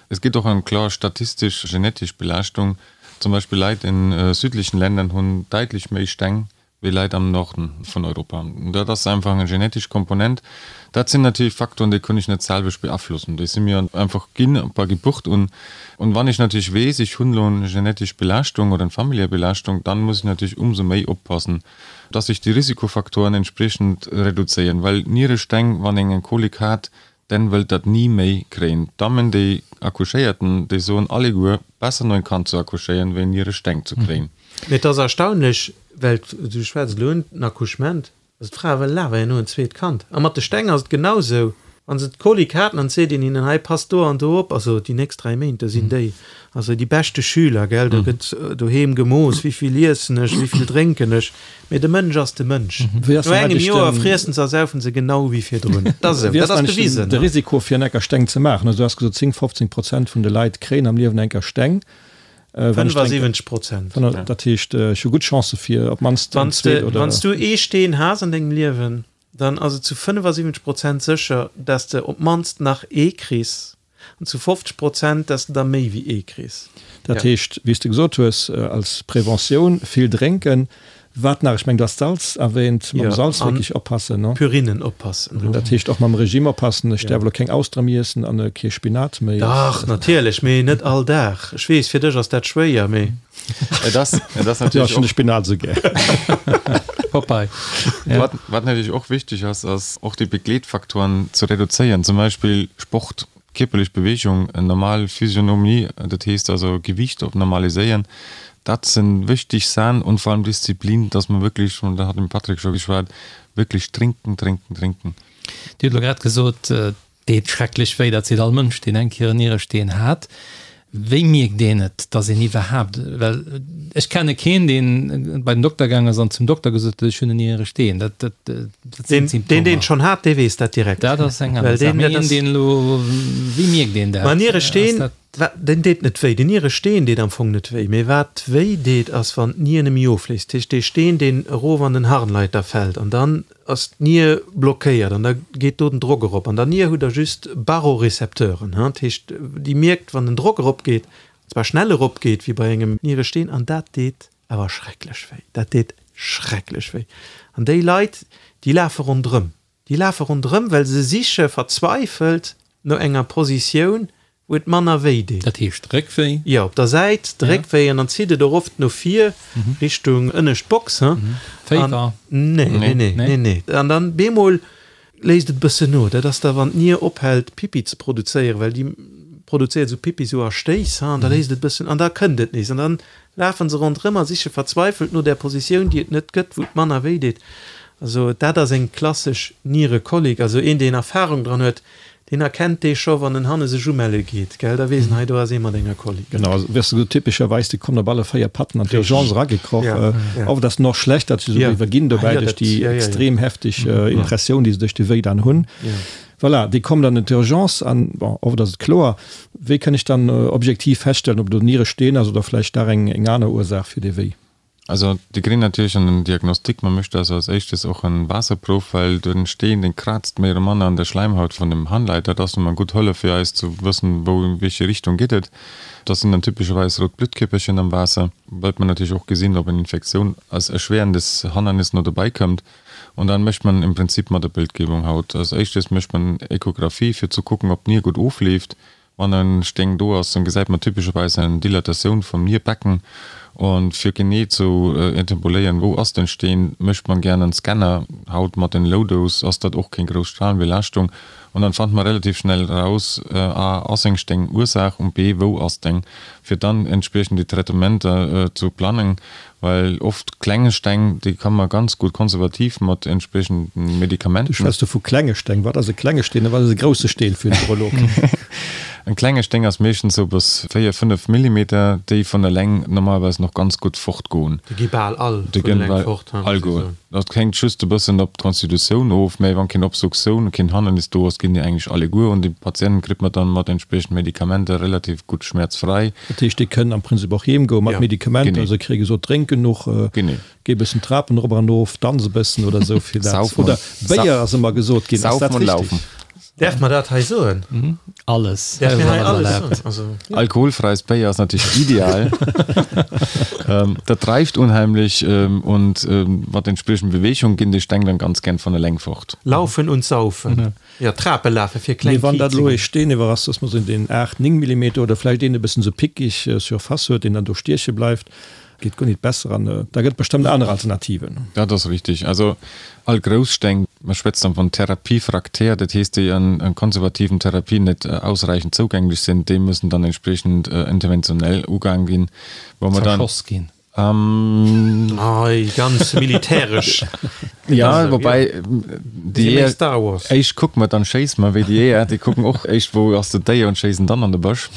Es gibt och eng kloer statistesch genetesch Belaaschtung. Zum Beispill Leit in südlichen Ländern hunn däitlech méi Steng wéi Leit am Norden vun Europa. Dat ass einfach eng genetesch Komponent. Dat sinn natierlech Faktoren, déi kunn ech net selwecht beaflossen. Déi si mir einfach ginn bei Geburt un. Und wann ech natierlech weess, ech hunn elo eng genetesch Belaaschtung oder eng familiär Belaaschtung, dann muss ech natierlech umsou méi oppassen, dass sech déi Risikofaktoren entspriechend reduzéieren, well Nieresteng, wann een eng Kolik hat, den wëllt dat ni méi kréien. D'Dammen déi accouchéierten, déi soen alleguer, besser no en Kand ze accouchéieren, wéi Nieresteng ze kréien. Mee et ass erstaunlech, well du schwätz elo un den Accouchement, also d'Frae wëllen awer herno en zweet Kand. A mat de Steng ass et genau sou. Wann se d'Kolik haten an et seet een hinnen, hei passt do an do op, also déi nächst 3 Méint, do sinn déi also déi beschte Schüler, gell, do gëtt doheem gemooss, wéivill iessen ech, wéivill drénken ech, mee de Mënsch ass de Mënsch. Wéi ass No dann engem eigentlech Joer den. friessen se a saufen se genau wéi virdrun. Dat ass esou, Wéi dat ass ass dann eigentlech bewisen. de Risiko fir en Ecker Steng ze maachen? Also du has gesot 10, 15 Prozent vun de Leit kréien am Liewen enker Steng. Wann ech drénken. 75 Prozent. Dat heescht, ech hu gutt Chancë fir op d'mannst eng Wann s zweet de, oder. wann s du ee Steen has an dengem Liewen, dann ass et zu 75 Prozent sécher, dass de op d'mannst nach ee kriss, an zu 50 Prozent, dass de der méi wéi ee kriss. Dat heescht, wéi s de gesot hues, als Preventioun vill drénken. Wat nach? Ech mengen, du has d'Salz erwähnt. Mam Salz wierklech oppassen, ne? Purinen oppassen. Dat heescht och mam Regime oppassen. Ech däerf elo keng Austere méi iessen an kee Spinat méi. Dach, natierlech, mee net all Dag. Ech weess, fir dech ass dat schwéier, mee. Et ass, et ass natierlech och. Ech hunn de Spinat esou gär. Popeye. Ja. Wat, wat natierlech och wichteg ass, ass och déi Begleetfaktoren ze reduzéieren, zum Beispill Sport, kierperlech Bewegung, en normal Physionomie, dat heescht also Gewiicht op normaliséieren. Dat sinn wichteg Saachen und vor allem Disziplin, dass man wierklech, und da hat den Patrick scho geschwat, wierklech trinken, trinken, trinken. Dir hutt elo grad gesot, Deet schrecklech wéi, dat seet all Mënsch, deen eng Kéier en Nieresteen hat. Wéi mierkt een et, dass een iwwerhaapt, well ech kenne keen, deen bei den Dokter gaang ass an zum Dokter gesot huet, ech hunn en Nieresteen. Dat, dat, dat sinn Deen, deen d'Symptomer. schonn hat, dee weess dat direkt. Dat ass eng aner Well Saach. deen, Mee dat een, ass. deen elo, wéi mierkt een dat? Ma Ass Nieresteen, dat. Wa, deen deet net wéi. Den Nieresteen deet am Fong net wéi. Mee wat wéi deet, ass wann d'Nier net méi ofléist. Dat heescht, dee Steen, deen erof an den Harnleiter fält an dann ass d'Nier blockéiert an da geet do den Drock erop. An der Nier hutt Der just Barorecepteuren, dat heescht, déi mierkt, wann den Drock eropgeet, an zwar schnell eropgeet, wéi bei engem Nieresteen, an dat deet awer schrecklech wéi. Dat deet schrecklech wéi. An déi Leit, déi lafe ronderëm. Déi lafe ronderëm, well se siche verzweifelt no enger Positioun, wou et manner wéi deet. Dat heescht Réckwéi? Jo, op der Säit de Réckwéi an dann zitt et och oft no vir Richtung ënnescht Box. Féiwer? Nee, nee, nee, nee, nee. An dann bemol léisst et e bëssen no. Dat ass da wann d'Nier ophält Pipi ze produzéieren, well déi produzéiert esou Pipi esou a Stéiss, an da léisst et e bëssen an da kënnt et nees an dann lafen se ronderëm a siche verzweifelt no där Positioun, déi et net gëtt, wou et manner wéi deet. Also dat ass eng klassesch Nierekolik. Also een, deen Erfahrung dran huet, deen erkennt dee scho, wann en hanne sech umelle geet, gell, da weess en, hei do ass ee mat enger Kolik. Genau, also wéi s de gesot, typescherweis, déi kommen op alle 4 Patten an d'Urgence eragekroch. Oft ass en och schlecht, datt se esou iwwerginn dobäi duerch déi extrem hefteg Impressioun, déi se duerch de Wéi dann hunn. Voilà, déi kommen dann an d'Urgence an, bon, oft ass et kloer. Wéi kënn ech dann objektiv feststellen, ob do Nieresteen ass oder vläicht dach eng aner Ursaach fir dee Wéi? Also déi kréien natierlech en Diagnostic. Man mécht also als éischtes och en Waasserprouf, well den Steen, deen kraazt méi oder manner an der Schläimhaut vun dem Harnleiter. Dat ass nun mol eng gutt Hëllef fir eis ze wëssen, wou, in wéiche Richtung geet et. Dat sinn dann typescherweis rout Bluttkierperchen am Waasser. Wëllt man natierlech och gesinn, ob eng Infektioun als erschwerendes Hannernis no dobäi këmmt. Und dann mécht man im Prinzip mat der Bildgebung haut. Als éischtes mécht man Echographie fir zu kucken, ob d'Nier gutt ofleeft. Wann en Sténg do ass, dann gesäit man typescherweis eng Dilatatioun vum Nierbecken. Und fir genee zu interpoléieren, wou ass den Steen, mécht man gären en Scanner. Haut mat den Low Dose ass dat och keng grouss Strahlenbelaaschtung. Und dann fannt man relativ schnell raus, a, ass eng Sténg Ursaach und b, wou ass deng, fir dann entspriechend déi Traitementer zu plangen. Well oft klenge Steng, déi kann man ganz gutt konservativ mat entspriechenden Medikamenten. Du schwätz do vu klenge Steng. Wat ass e klenge Steen a wat ass e grousse Steen fir den Urolog? En klenge Sténg ass meeschtens sou bis 4, 5 Millimeter, déi vun eleng normalerweis nach ganz gutt fortgoen. Déi gi bal all vun eleng fort, muss ech soen. Dat hänkt just e bëssen op d'Constitutioun of, mä wann keen Obstruktioun, keen Hannernis do ass, ginn déi eigentlech alleguer un. Déi Patienten kritt man dann mat entspriechenden Medikamenter relativ gutt schmäerzfrei. Dat heescht, déi kënnen am Prinzip och heem goen mat Medikamenter. Genee. Se kréie gesot, drénk genuch, Genee. géi e bëssen d'Trapen erop an erof, danz e bëssen oder esou fir dat. Saufen Oder Béier ass ëmmer gesot ginn. Ass dat Saufen und richtig? laufen. Däerf mer dat hei soen? Alles. Däerf mir hei Alles alles erlaabt. soen? Also, ja. Alkoholfreies Béier ass natierlech ideal. Dat dreift unheimlech und mat entspriechend Bewegung ginn déi Steng dann ganz gern von eleng fort. Laufen und saufen. Jo, Trape lafe fir kleng Mee wann dat elo Kiitzingen. ee Steen iwwer ass, dass mer soen, deen 8, 9 Millimeter oder vläicht een e bëssen esou pickig Surface huet, deen dann do stieche bleift, geet guer nit besser an da gëtt bestëmmt aner Alternativen. Dat ass richtig. Also all grouss Steng, mer schwätzt dann von Therapiefraktär, dat heesst déi an konservativen Therapien net ausreichend zougänglech sinn, déi müssen dann entspriechend interventionell ugaang ginn, wou mer dann. Zerschoss ginn. Ähm, Ei, ganz militäresch. Ja, wobei déi Jeeër, Star Wars. Éischt kucke mer, dann schéisse mer, wéi déi Jeeër, déi kucken och éischt, wou ass den Déier und schéissen dann an de Bësch.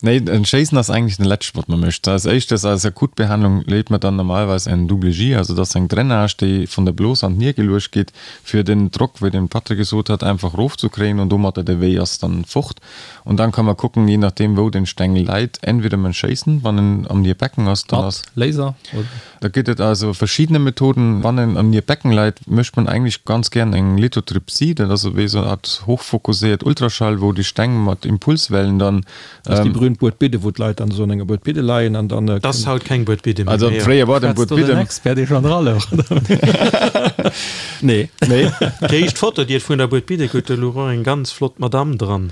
Nee, en Schéissen ass eigentlech den leschte, wat mer mécht. Als éischtes, als Akutbehandlung leet mer dann normalerweis en Double J, also dat ass eng Drainage, déi vun der Blos an d'Nier geluecht gétt, fir den Drock, wéi den Patrick gesot hat, einfach erofzekréien und domatter de Wéi ass dann fort. Und dann kann man kucken, je nachdem wou den Stengel läit, entweder man schéissen, wann en am Nierbecken ass, dann ass. Mat Laser oder? Da gëtt et also verschiedene Methoden. Wann en am Nierbecken läit, mécht man eigentlich ganz gern eng Lithotripsie, dat ass wéi esou eng Art hochfokusséiert Ultraschall, wou déi Steng mat Impulswellen dann. Dat ass déi berühmt Buedbidde, wou d'Leit dann esou an enger Buedbidde leien an dann. Dat ass haut keng Buedbidde méi. Also fréier war et eng Schwätzt do den Buedbidde. Expert, dee schonn dra louch, oder? Nee. Nee. Déi éischt Foto, déi et vun der Buedbidde gëtt, do louch och eng ganz flott Madamm dran.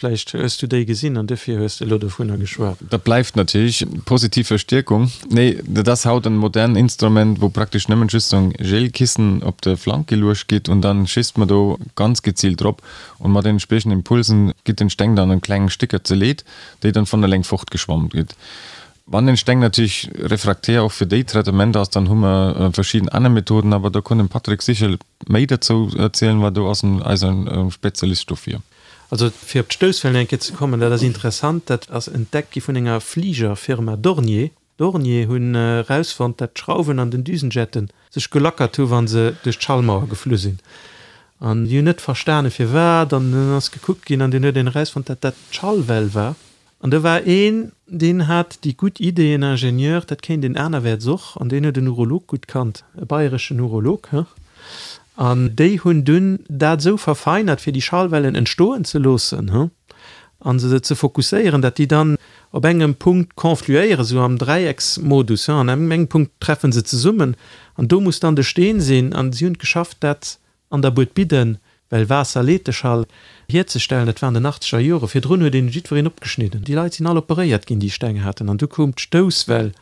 Vläicht hues du déi gesinn an duerfir hues de elo dovunner geschwat. Dat bleift natierlech positiv Verstierkung. Nee, dat ass haut en modern Instrument, wou praktesch nëmmen just esou en Gelkissen op de Flank geluecht gitt und dann schisst mer do ganz gezielt drop und mat den entspriechenden Impulsen gitt den Steng dann an kleng Stécker zerleet, déi dann von eleng fortgeschwommt gitt. Wann den Steng natierlech refraktär och fir déi Traitementer ass, dann hu mer verschidden aner Methoden, awer do kann den Patrick sicher méi derzou erzielen, well do ass en eise Spezialist dofir. Also fir op d'Stousswellen eng Kéier ze kommen, dat ass interessant, dat ass entdeckt gi vun enger Fligerfirma Dornier. Dornier hunn erausfonnt, dat d'Schrauwen an den Düsenjetten sech gelackert hu wa se duerch d'Schallmauer geflu sinn. An déi hunn net verstane firwat an dann ass gekuckt ginn an dunn huet een erausfonnt, dat dat d'Schallwell war. An do war een, deen hat déi gutt Idee, en Ingenieur, dat kéint een anerwäerts och, an deen huet en Urolog gutt kannt, e bayreschen Urolog, he, an déi hunn dunn dat esou verfeinert, fir déi Schallwellen entstoen ze loossen, he, a se ze fokusséieren, dat déi dann op engem Punkt confluéieren, esou am Dräiecksmodus, he, an engem Punkt treffe se zesummen, an do muss dann de Steen sinn, an si hunn et geschafft, dat an der Buedbidden, well Waasser leet de Schall, hierzestellen. Dat war an den achtzeger Jore. Virdrun huet een jiddwereen opgeschnidden. Déi Leit sinn all operéiert ginn, déi Steng haten. An du koum d'Stousswell.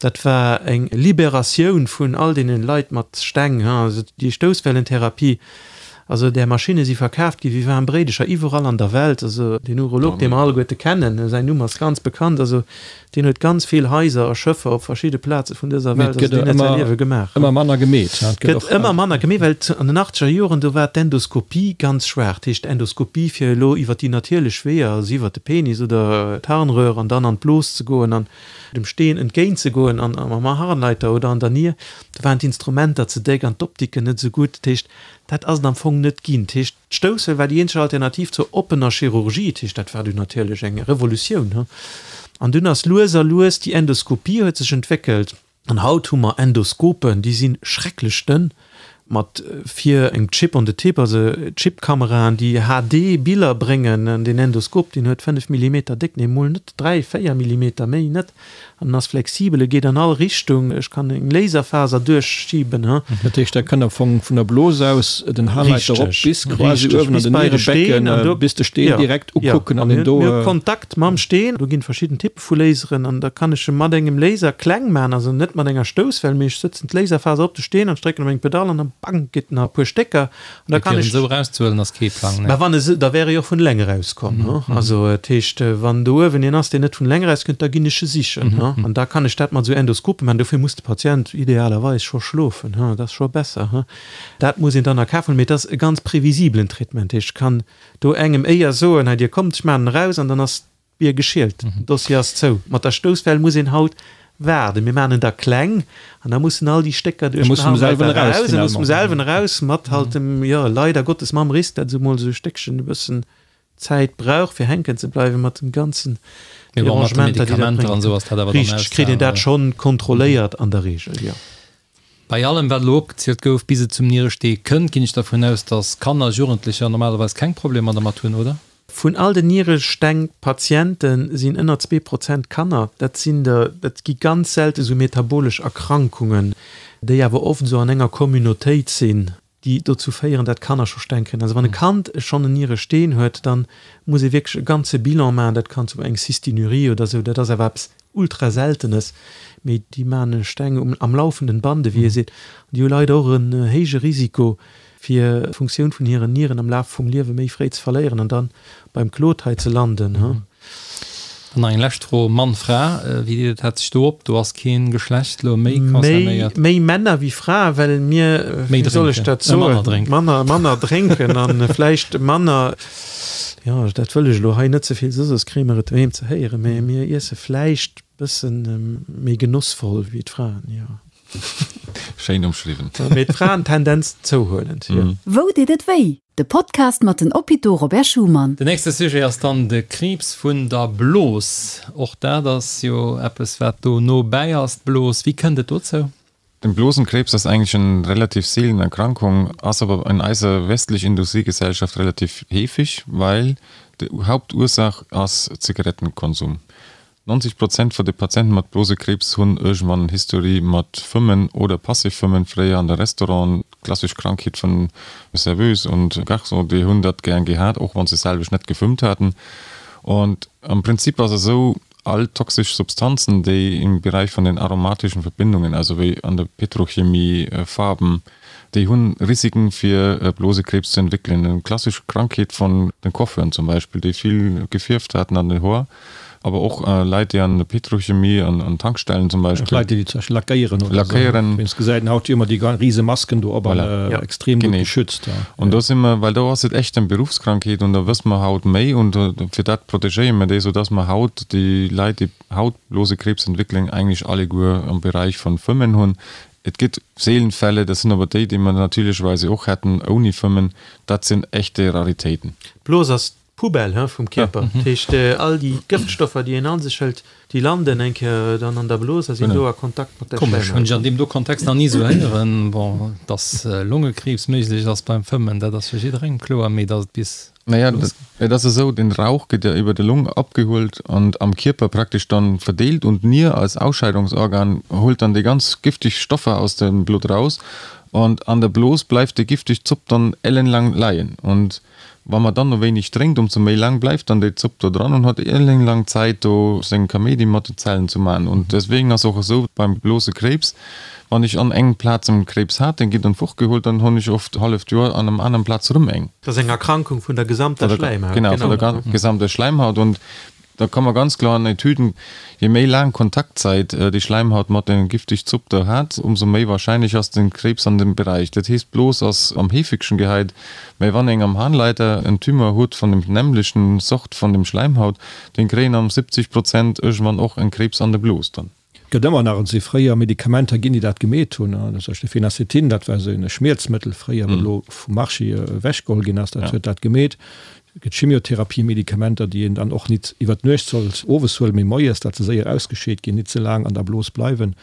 Dat war eng Liberatioun vun all deene Leit mat Steng. Also déi Stousswellentherapie, also där Maschinne si verkaaft gi wéi waarm Bréidecher iwwerall an der Welt. Also deen Urolog, dee mer alleguerte kennen, säin Numm ass ganz bekannt, also Deen huet ganz vill Haiser a Schëffer op verschidde Plaze vun dëser Welt, also deen huet säi Liewe gemaach. Ëmmer manner gemeet. Et gëtt ëmmer manner gemeet, well an den achtzeger Joren, do war d'Endoskopie ganz schwaach. Dat heescht, d'Endoskopie fir elo iwwer déi natierlech Weeër, also iwwer de Penis oder d'Harnröhr an dann an d'Blos ze goen an dem Steen entgéint ze goen an mam Harnleiter oder an der Nier, do waren d'Instrumenter ze déck an d'Optiken net esou gutt. Dat heescht, dat ass et am Fong net ginn. Dat heescht, D'Stoussel war déi eenzeg Alternativ zur oppener Chirurgie, dat heescht, dat war dunn natierlech eng Revolutioun. An dunn ass lues a lues déi Endoskopie huet sech entwéckelt. An haut hu mer Endoskopen, déi si schrecklech dënn, mat vir engem Chip on the tip, also Chipkameraen, déi HD-Biller bréngen. An deen Endoskop, deen huet 5 Millimeter déck, nee mol net, 3, 4 Millimeter, méi net. An en ass flexibel, e geet an all Richtung, ech kann eng Laserfaser duerchschiben. Dat heescht, der kënnt am Fong vun der Blos aus den Harnleiter erop bis quasi uewen an den Nierebecken, bis de Steen direkt ukucken an en do. Mir hu Kontakt mam Steen, do ginn verschidden Typpe vu Laseren an da kann ech e mat engem Laser kleng maachen, also net mat enger Stousswell, mee ech sëtzen d'Laserfaser op de Steen an ech drécken op eng Pedall an da bang geet en a puer Stécker. An da kann ech. Esou erauszehuelen ass kee Plang, nee. Mä wann e, da wär e jo och vun eleng erauskomm, hu. Also dat heescht, wann do uewen een ass, deen net vun eleng erauskënnt, da ginn ech e sichen, hu. An da kann ech dat mat esou Endoskope maachen. Dofir muss de Patient idealerweis scho schlofen, hu, dat ass scho besser, hu. Dat muss een dann a Kaf huelen, mee et ass e ganz previsibelen Traitement. Dat heescht, ech kann do engem éier soen, hei Dir kommt, ech maachen en eraus an dann ass Bier geschielt, den Dossier ass zou. Mat der Stousswell muss een haut waarden. Mir maachen en da kleng an da mussen all déi Stécker duerch den Harnleiter eraus. E muss vum selwen eraus, mat halt dem, jo, leider Gottes mam Risk, dat esou mol esou e Stéckchen e bëssen Zäit brauch, fir hänken ze bleiwen, mat den ganzen Derangementer, déi dat bréngt. Richteg, kritt een dat schonn kontrolléiert an der Regel, jo. Bei allem, wat elo opgezielt gouf, bis et zum Nierestee kënnt, ginn ech dervun aus, dass Kanner, Jugendlecher normalerweis keng Problemer dermat hunn, oder? Vun all den Nieresteng-Patiente sinn ënner 2% Kanner. Dat sinn der, dat gi ganz selte sou metabolesch Erkrankungen, déi awer oft esou an enger Communautéit sinn, déi dozou féieren, dat Kanner scho Steng kréien. Also wann e Kand schonn en Nieresteen huet, da muss ee wierklech e ganze Bilan maachen. Dat kann zum eng Cystinurie oder esou, dat ass awer eppes ultra Seltenes, mee déi maachen Steng um am laufenden Bande, wéi ee seet. An déi hu leider och en héije Risiko, fir d'Funktioun vun hiren Nieren am Laf vum Liewe méi fréi ze verléieren an dann beim Claude hei ze landen. An nach eng lescht Fro, Mann, Fra, wéi deelt dat sech do op? Do ass keen Geschlecht elo méi concernéiert. Méi Männer wéi Fraen, well mir, wéi soll ech dat soen, manner manner drénken an vläicht manner, jo dat wëll ech elo hei net ze vill soen, soss kréie mer et doheem ze héieren, mä mir iesse vläicht bëssen méi genossvoll wéi d'Fraen, jo. Schéin umschriwwen. Mee d'Fraen Tendenz zouhuelend, jo. Wou deet et wéi? De Podcast mat den Hôpitaux Robert Schuman. Den nächste Sujet ass dann de Kriibs vun der Blos. Och dat ass jo eppes, wat do no bäi ass, d'Blos. Wéi kënnt et dozou? Den Blosenkrebs ass eigentlich eng relativ seelen Erkrankung, ass awer in eiser westlich Industriegesellschaft relativ heefig, weil de Hauptursaach ass Zigarettenkonsum. 90 Prozent vun de Patienten mat Blosekriibs hunn iergendwann en History mat Fëmmen oder Passivfëmmen, fréier an de Restauranten, klassesch Krankheet vun Serveuse und Garçon, déi hunn dat gären gehat, och wann se selwecht net gefëmmt haten. Und am Prinzip ass esou, all toxesch Substanzen, déi im Bereich vun den aromatischen Verbindungen, also wéi an der Petrochemie, Farben, Déi hunn Risiken fir Blosekrebs ze entwéckelen. Eng klassesch Krankheet vun den Coiffeuren zum Beispill, déi vill gefierft haten an den Hoer, awer och Leit déi an der Petrochemie, an Tankstellen zum Beispill. Leit déi zum Beispill lackéieren oder esou. Lackéieren. Wéinst gesäit een haut jo ëmmer déi rise Masken do op an extrem gutt geschützt. An do si mer, well do ass et echt eng Beruffskrankheet an do wësse mer haut méi und fir dat protegéiere mer déi, soudass mer haut déi Leit déi haut Blosekrebs entwéckelen eigentlech alleguer am Bereich vun Fëmmen hunn. Et gëtt seelen Fälle, dat sinn awer déi, déi mer natierlecherweise och hätten ouni Fëmmen, dat sinn echte Raritéiten. D'Blos ass d'Poubelle, he, vum Kierper. Dat heescht, all déi Gëftstoffer, déi een an sech hëlt, déi landen eng Kéier dann an der Blos a sinn do a Kontakt mat der Komesch, hunn ech an deem do Kontext nach ni esou héieren. Bon, dass Longekriibs méiglech ass beim Fëmmen, dat ass fir jidderengem kloer, mee dass et bis Naja, et ass esou, den Rauch gëtt ja iwwer de Long abgeholt und am Kierper praktesch dann verdeelt und d'Nier als Ausscheidungsorgan holt dann déi ganz giftig Stoffer aus dem Blutt raus und an der Blos bleift déi giftig Zopp dann ellenlang leien und wa mer dann no wéineg drénkt, umso méi lang bleift dann déi Zopp do dran und hat ellenlang Zäit do seng Kaméidi mat den Zellen zu man und deswegen ass och esou beim Blosekrebs, Wann ech an engem Plaz en Krebs hat, den ginn dann fortgeholt, dann hunn ech oft halleft Joer an engem aneren Plaz rëm eng. Dat ass eng Erkrankung vun der gesamter Schläimhaut. Genau, vun der gesamter Schläimhaut. Und da kann man ganz kloer an Etüden, je méi laang Kontaktzäit déi Schläimhaut mat dem giftig Zopp do hat, umso méi wahrscheinlech ass den Krebs an dem Bereich. Dat heesst, d'Blos ass am heefegsten gehäit, mä wann eng am Harnleiter en Tumeur huet vun dem nämlechten Sort vun dem Schläimhaut, den kréien am 70 Prozent iergendwann och en Krebs an der Blos dann. Gëtt ëmmer nach, et si fréier Medikamenter ginn, déi dat gemeet hunn, zum Beispill Phenacetin, dat war esou e Schmierzmëttel fréier, wat elo vum Marché ewechgeholl ginn ass, dat huet dat gemeet. Et gëtt Chimiotherapie-Medikamenter, déi een dann och nit iwwer d'Nuecht sollt owes huelen, mee moies, dat se séier ausgescheet ginn, nit ze laang an der Blos bleiwen.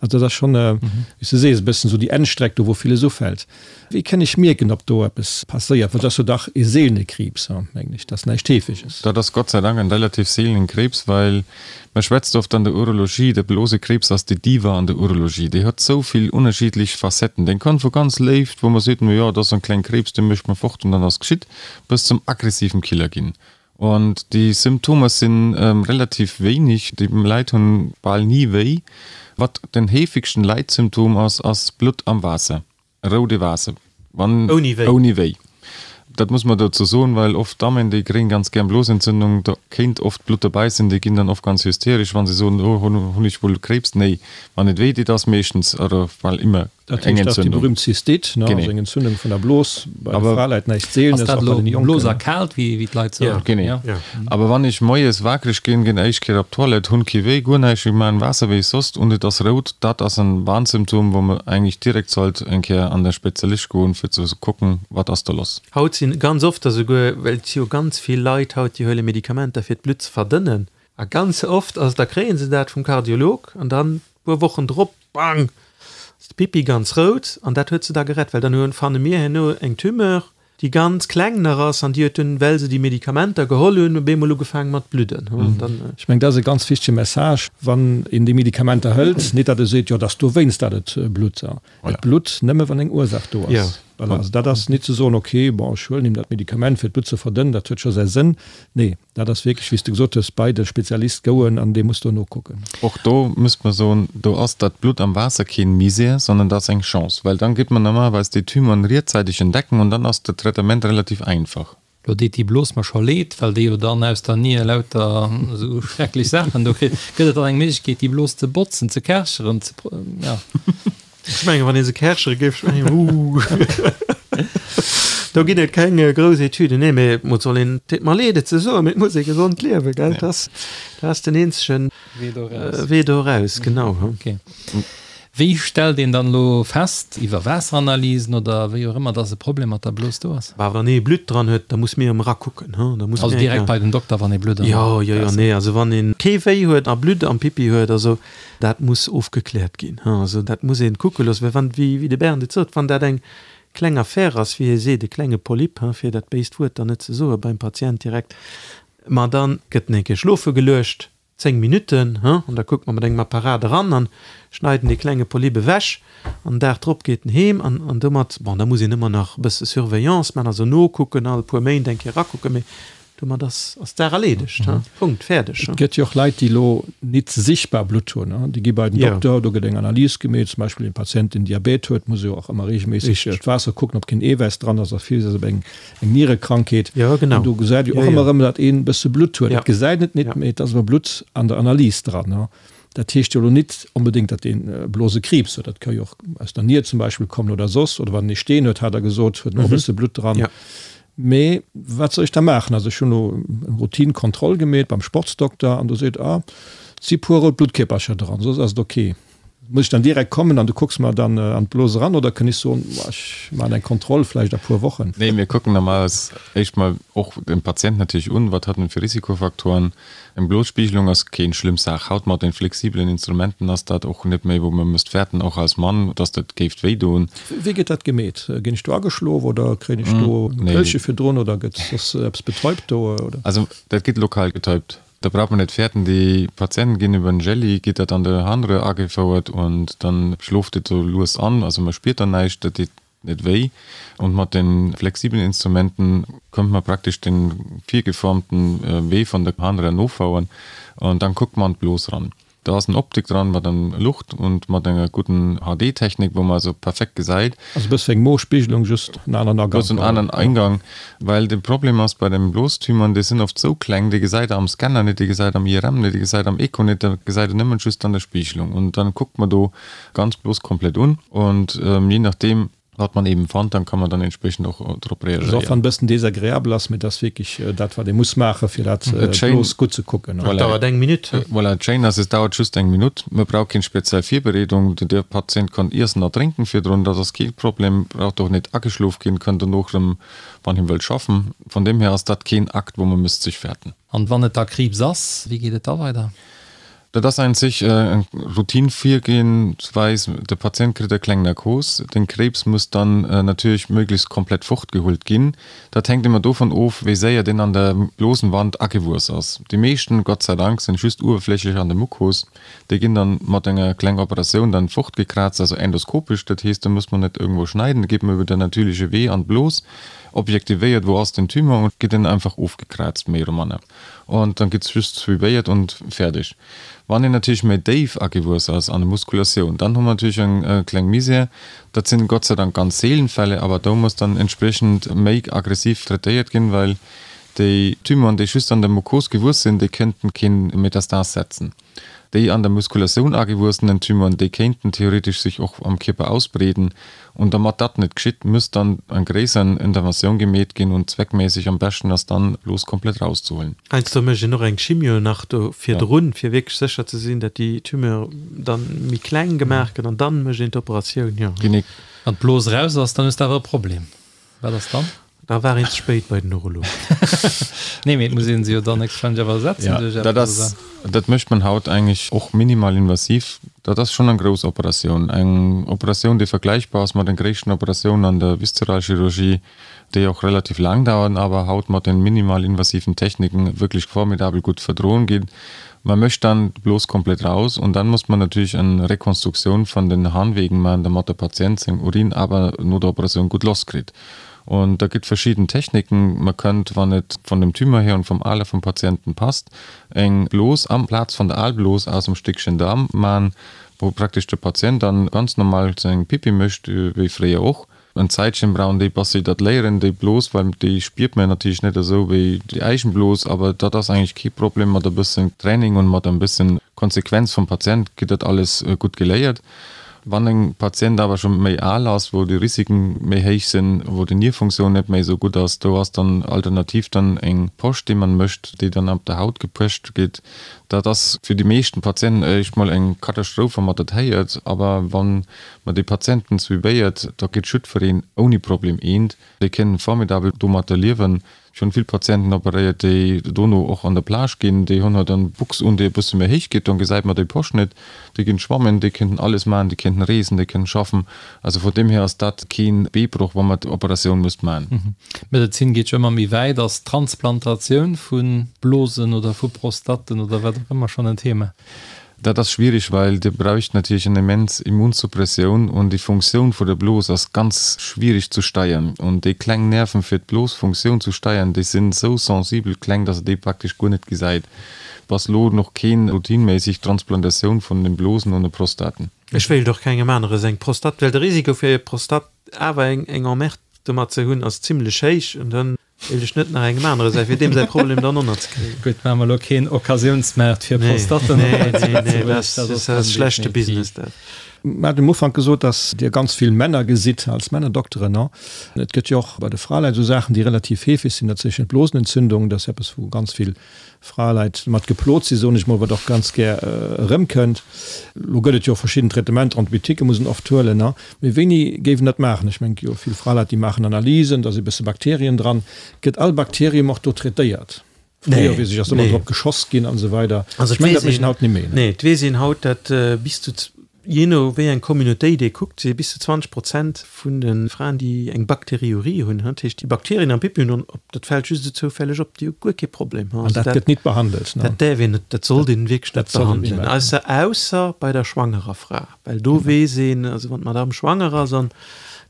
Also dat ass schonn, wéi s de sees, e bëssen esou déi Endstreck do, wou villes ufält. Wéi kënn ech mierken, ob do eppes passéiert? Well et ass jo dach ee seelene Kriibs, mengen ech, dat ass näischt Heefeges. Dat ass Gott sei Dank en relativ seelenen Kriibs, well mer schwätzt oft an der Urologie, de Blosekriibs ass déi Diva an der Urologie. Déi huet sou vill ënnerschiddlech Facetten. Deen kann vu ganz léift, wou mer seet, no jo, dat ass en kleng Kriibs, dee mécht mer fort an dann ass geschitt, bis zum aggressiven Killer ginn. Und déi Symptomer sinn relativ wéineg, déi Leit hunn bal ni wéi. Wat den heefegsten Leitsymptom ass, ass Blutt am Waasser. Roude Waasser, wann Ouni wéi. Ouni wéi. Dat muss mer dozou soen, well oft Dammen, déi kréien ganz gär Blosentzündung, do kéint oft Blutt dobäi sinn, déi ginn dann oft ganz hysteresch, wann se soen, oh hunn ech wuel Krebs. Nee, wann et wéi deet, ass meeschtens oder bal ëmmer Dat eng heescht, dat ass déi Entzündung. berühmt Zystite, ne, also eng Entzündung vun der Blos, bei de Fraleit näischt Ass Seelenes, dat och bei elo den Jonken. Blos erkaalt, wéi wéi d'Leit soen? Genee. Ja. Awer wann ech moies wakereg ginn, ginn éischt Kéier op d'Toilette, hunn kee Wéi, guer näischt, ech maachen Waasser wéi soss und et ass rout, dat ass en Warnsymptom, wou mer eigentlech direkt sollt eng Kéier an de Spezialist goen, fir ze kucken, wat ass do lass. Haut sinn ganz oft der souguer, well et si jo ganz vill Leit haut, déi huele Medikamenter fir d'Blutt ze verdënnen, a ganz oft ass, da kréie se dat vum Kardiolog an dann puer Wochen drop, bang, ass de Pipi ganz rout an dat huet se da gerett, well dann hunn, fanne mir herno eng Tumeur, déi ganz kleng nach ass an déi huet dunn, well se déi Medikamenter geholl hunn, op eemol ugefaangen mat bludden. Ech mengen, dat ass e ganz wichtege Message, wann een déi Medikamenter hëlt, nit datt e seet, jo, et ass dowéinst, datt et blutt. Et blutt nëmme wann eng Ursaach do ass. Voilà, also dat ass nit ze soen, okay, bon, ech huelen him dat Medikament fir d'Blutt ze verdënnen, dat huet scho säi Sënn. Nee. Dat ass wierklech, wéi s de gesot hues, bei de Spezialist gouen an dee muss do nokucken. Och do müsst mer soen, do ass dat Blutt am Waasser keen Misär, sondern dat ass eng Chance, well dann geet mer normalerweis déi Tumeuren rietzeiteg entdecken und dann ass de Traitement relativ einfach. Lo deet déi Blos mer scho leed, well déi jo dann aus der Nier lauter esou schrecklech Saachen do kritt. Gëtt et dann eng Méiglechkeet, déi Blos ze botzen, ze kärcheren, ze, ja. Ech mengen, wann ee se kärchere géif, ech mengen, uh. Do ginn et keng grouss Etüden, nee, mee et soll een, et deet mer leed et ze soen, mee et muss ee gesond liewen, gell, dat ass, dat ass den eenzegen Wee do eraus. Wee do eraus, genau. Okay. Wéi stellt een dann elo fest, iwwer Waasseranalysen oder wéi och ëmmer, dass e Problem mat der Blos do ass? Bah, wann ee Blutt dran huet, da muss mir erëm erakucken, hu, da muss Also mir direkt bei den Dokter, wann ee Blutt am Jo, jo, jo, nee, also wann ee kee Wéi huet a Blutt am Pipi huet, also dat muss ofgekläert ginn, hu, also dat muss ee kucke loossen, well wann, wéi, wéi de Bernd et sot, wann dat eng kleng Affaire ass, wéi hie seet, e klenge Polyp, hu, fir dat béist Wuert dann net ze soe beim Patient direkt, ma dann gëtt en eng Kéier schlofe geluecht, 10 Minutten, hu, an da kuckt mer mat engem Apparat eran an schneiden dee klenge Polyp ewech an den Dag drop geet en heem an an domat, bon, da muss een ëmmer nach e bësse Surveillance man, also nokucken, all puer Méint eng Kéier erakucken, mee domat ass ass d'Saach erleedegt, hu, Punkt, fäerdeg, hu. Et gëtt jo och Leit, déi elo nit sichtbar Blutt hunn, hu, déi gi bei den Dokter, do gëtt eng Analys gemeet, zum Beispill een Patient, deen Diabet huet, muss jo och ëmmer reegelméisseg d'Waasser kucken, ob keen Eewäiss dran ass a vill ass op eng Eng Nierekrankheet. Ja, genau. An do gesäit ee och ëmmer erëm, datt een e bësse Blutt huet. Et gesäit et nit, mee et ass awer Blutt an der Analys dran. Dat heescht jo elo nit onbedéngt, datt een Blosekriibs huet. Dat ka jo och aus der Nier zum Beispill kommen oder soss. Oder wann een ee Steen huet, hat Der gesot, huet en och e bësse Blutt dran. Mee wat soll ech da maachen? Also ech hunn elo eng Routine-Kontroll gemeet beim Sportsdokter an do seet, ah, et si puer rout Bluttkierpercher dran, soss ass et ok. Muss ech dann direkt kommen an du kucks mer dann an d'Blos eran oder kënn ech soen, ech maachen eng Kontroll vläicht a puer Wochen? Nee, mir kucken normalerweis éischt mol och den Patient natierlech un, wat hat en fir Risikofaktoren. Eng Blosspiegelung ass keen schlëmm Saach. Haut mat den flexibelen Instrumenten ass dat och net méi wou mer misst fäerten, och als Mann, dass dat géift wéi doen. Wéi gëtt dat gemeet? Ginn ech do ageschlof oder kréien ech do e Pëllche virdrun oder gëtt soss eppes betäubt do oder? Also dat gëtt lokal betäubt. Da braucht man net fäerten, déi Patienten ginn iwwer en Jelli, geet dat an de Harnröhr agefouert und dann schloft et sou lues an, also man spiert dann näischt, dat deet net wéi. Und mat den flexiblen Instrumenten könnt man praktesch den virgeformten Wee von der Harnröhr nofouern und dann kuckt man an d'Blos ran. Do ass en Optik dran mat en Lucht und mat enger gudden HD Technik wou man also perfekt gesäit. Also e bësse wéi eng Mospiegelung, just en aneren Agang. Just en aneren Eingang, well de Problem ass bei den Blostumeuren, déi sinn oft sou kleng, déi gesäit der am Scanner net, déi gesäit am IRM net, déi gesäit am Echo net, dat gesäit der nëmmen just an der Spiegelung. Und dann kuckt man do ganz Blos komplett un und je nachdem, Wat man eben fand, dann kann man dann entsprechend och drop reagéieren. Also och wann e bëssen desagreabel ass, mee et ass wierklech dat wat ee muss maachen, fir dat bloos gutt ze kucken. Et dauert eng Minutt. Voilà, et schéin ass, et dauert just eng Minutt. Man brauch keng speziell Virbereedung. De Patient kann iessen a drénken virdrun, dat ass kee Problem, braucht och net ageschlof ginn, kann dono erëm, wann hien wëllt, schaffen. Von deem hier ass dat keen Akt, wou man misst sech fäerten. An wann et da Kriibs ass, wéi geet et da weider? Dat ass ein sich eng Routine-Virgehensweis. De Patient kritt e kleng Narkos. Den Krebs muss dann natierlech möglichst komplett fortgeholt ginn. Dat hänkt ëmmer dovun of, wéi séier deen an der Blosenwand agewuess ass. Déi meeschten, Gott sei Dank, sinn just uewerflächlech an der Mukos. Déi ginn dann mat enger kleng Operatioun dann fortgekraazt, also endoskopesch. Dat heesst, do muss man net irgendwou schneiden, da geet man iwwer den natürliche Wee an d'Blos, objektivéiert, wou ass den Tumor und gëtt en einfach ofgekraazt, méi oder manner. Und dann gëtt just suivéiert und fäerdeg. Wann een natierlech méi déif agewuess ass an der Muskulatioun, dann hu mer natierlech eng kleng Misär. Dat sinn Gott sei Dank ganz seelen Fälle, awer do muss dann entspriechend méi aggressiv traitéiert ginn, well déi Tumeuren, déi just an der Mukos gewuess sinn, déi kënnten keen Metastas setzen. Déi an der Muskulatioun agewuessenen Tumeuren, déi kéinten theoretesch sech och am Kierper ausbreeden. Und dermat dat net geschitt, müsst dann eng gréisser Interventioun gemeet ginn und zweckméisseg am beschten ass dann, d'Blos komplett rauszehuelen. Heiansdo mécht een och eng Chimio nach do virdrun, fir wierklech sécher ze sinn, dat déi Tumeur dann méi kleng gemaach gëtt an dann mécht een d'Operatioun, jo. Genee. Wann d'Blos raus ass, dann hues de awer e Problem. Wat ass dann? Da war een ze spéit bei den Urolog. Nee, mee et muss een se jo dann héchstwahrscheinlech awer ersetzen Ja, duerch dat eppes, ass, oder? dat mécht man haut eigentlich och minimalinvasiv. Dat ass schonn eng grouss Operatioun. Eng Operatioun, déi vergläichbar ass mat den gréissten Operatiounen an der Viszeralchirurgie, déi och relativ laang dauern, awer haut mat den minimalinvasiven Techniken wierklech formidabel gutt verdroen ginn. Man mécht dann d'Blos komplett raus und dann muss man natürlich eng Rekonstruktioun von den Harnwegen man, dermat der Patient seng Urin awer no der Operatioun gutt loss kritt. Und da gëtt verschidden Techniken. Man kënnt, wann et von dem Tumeur her und vom Alter vom Patienten passt, eng Blos amplaz von der Aalblos aus em Stéckchen Daarm man, wou praktesch de Patient dann ganz normal seng Pipi mécht, wéi fréier och. En Zäitchen brauchen déi bass se dat léieren, déi Blos, well déi spiert man natierlech net esou wéi déi eigen Blos, awer dat ass eigentlech kee Problem. Mat e bëssen Training und mat en bëssen Konsequenz vum Patient gëtt dat alles gutt geléiert. Wann en Patient awer scho méi al ass, wou déi Risiken méi héich sinn, wou déi Nierfunktioun net méi esou gutt ass, do ass dann alternativ dann eng Posch déi man mécht, déi dann op der Haut gepecht gétt. Dat ass fir déi meeschten Patienten éischt mol eng Katastroph wa mat dat héiert, awer wann mer déi Patienten suivéiert, da kritt jiddwereen ouni Problem eent. Déi kënnen formidabel domatter liewen. Ech hunn vill Patienten operéiert, déi dono och an der Plage ginn. Déi hunn halt dann Buchs un, déi e bësse méi héich geet, dann gesäit mer déi Posch net. Déi ginn schwammen, déi kënnten alles maachen, déi kënnten reesen, déi kënnten schaffen. Also vun deem hier ass dat keen Beebroch, wa mer d'Operatioun müsst maachen. D'Medezin geet jo ëmmer méi wäit. Ass d'Transplantatioun vu Blosen oder vu Prostatten oder wat och ëmmer schonn en Thema? Dat ass schwierig, well Dir bräucht natierlech eng immens Immunsuppressioun und déi Funktioun vu der Blos ass ganz schwierig zu steiern. Und déi kleng Nerven fir d'Blosfunktioun zu steiern, déi sinn esou sensibel kleng, dass Der déi praktesch guer net gesäit. Bass lo noch keen routineméissig Transplantatioun vun den Blosen und de Prostaten. Ech wéilt och kengem anere seng Prostate, well de Risiko fir Prostate awer eng Emmerde domat ze hunn ass zimlech héich und dann Wéilt ech net nach engem anere säi fir deem säi Problem dann onnert ze kréien. Gutt, maache mer elo keen Occasiounsmaart fir Prostatten op hei zu Lëtzebuerg. Dat ass schlechte Business dat. Mir haten um Ufank gesot, dass Dir ganz vill Männer gesitt als Männerdokteren. Et gëtt jo och bei de Fraleit esou Saachen, déi relativ heefeg sinn, dat sinn d'Blosenentzündung. Dat ass eppes, wou ganz vill Fraleit mat geplot sinn, soen ech mol, wat och ganz gär erëmkënnt. Elo gëtt et jo verschidden Traitementer, Antibiotiquë muss een oft huelen, mee wéini géif een dat maachen? Ech mengen, et gi jo vill Fraleit, déi maachen Analysen, da si bësse Bakterien dran. Gëtt all Bakterium och do traitéiert? Fréier, weess ech, ass ëmmer drop geschoss ginn an esou weider. Ech mengen, dat mécht een haut net méi. Nee, et weess een haut, dat bis zu Jee no wéi eng Communautéit ee kuckt, si bis zu 20 Prozent vun de Fraen, déi eng Bakteriurie hunn, dat heescht déi Bakterien am Pipi hunn, op, dat fält just esou zoufälleg op, déi hu guer kee Problem. An dat gëtt nit behandelt? Dat däerf een net, dat sollt een wierklech net behandelen, ausser, ausser bei der schwangerer Fra, well do weess een, also wann d'Madame schwanger ass an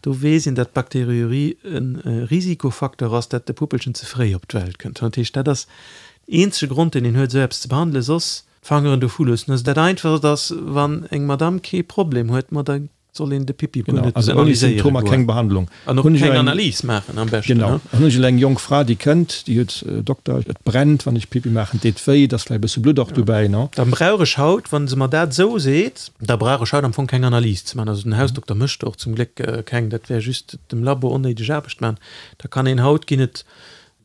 do weess een, dat d'Bakteriurie e Risikofacteur ass, dat de Puppelchen ze fréi op d'Welt kënnt. Dat heescht, dat ass den eenzege Grond, deen een huet, esou eppes ze behandelen, soss D'Fangeren dovu loossen. Also dat Einfachst ass, wann eng Madame kee Problem huet, ma da soll een de Pipi guer net analyséiere goen. Also ouni Symptomer keng Behandlung. An och keng Analys maachen am beschten. Genau. An hunn ech elo eng jonk Fra, déi kënnt, déi huet, Dokter, et brennt, wann ech Pipi maachen, et deet wéi, et ass vläicht e bësse Blutt och dobäi, no. Da brauch ech haut, wa se mer dat esou seet, da brauch ech haut am Fong keng Analys ze maachen. Also den Hausdokter mécht och zum Gléck keng, dat wär just dem Labo onnéideg Aarbecht maachen. Da kann een haut, ginn et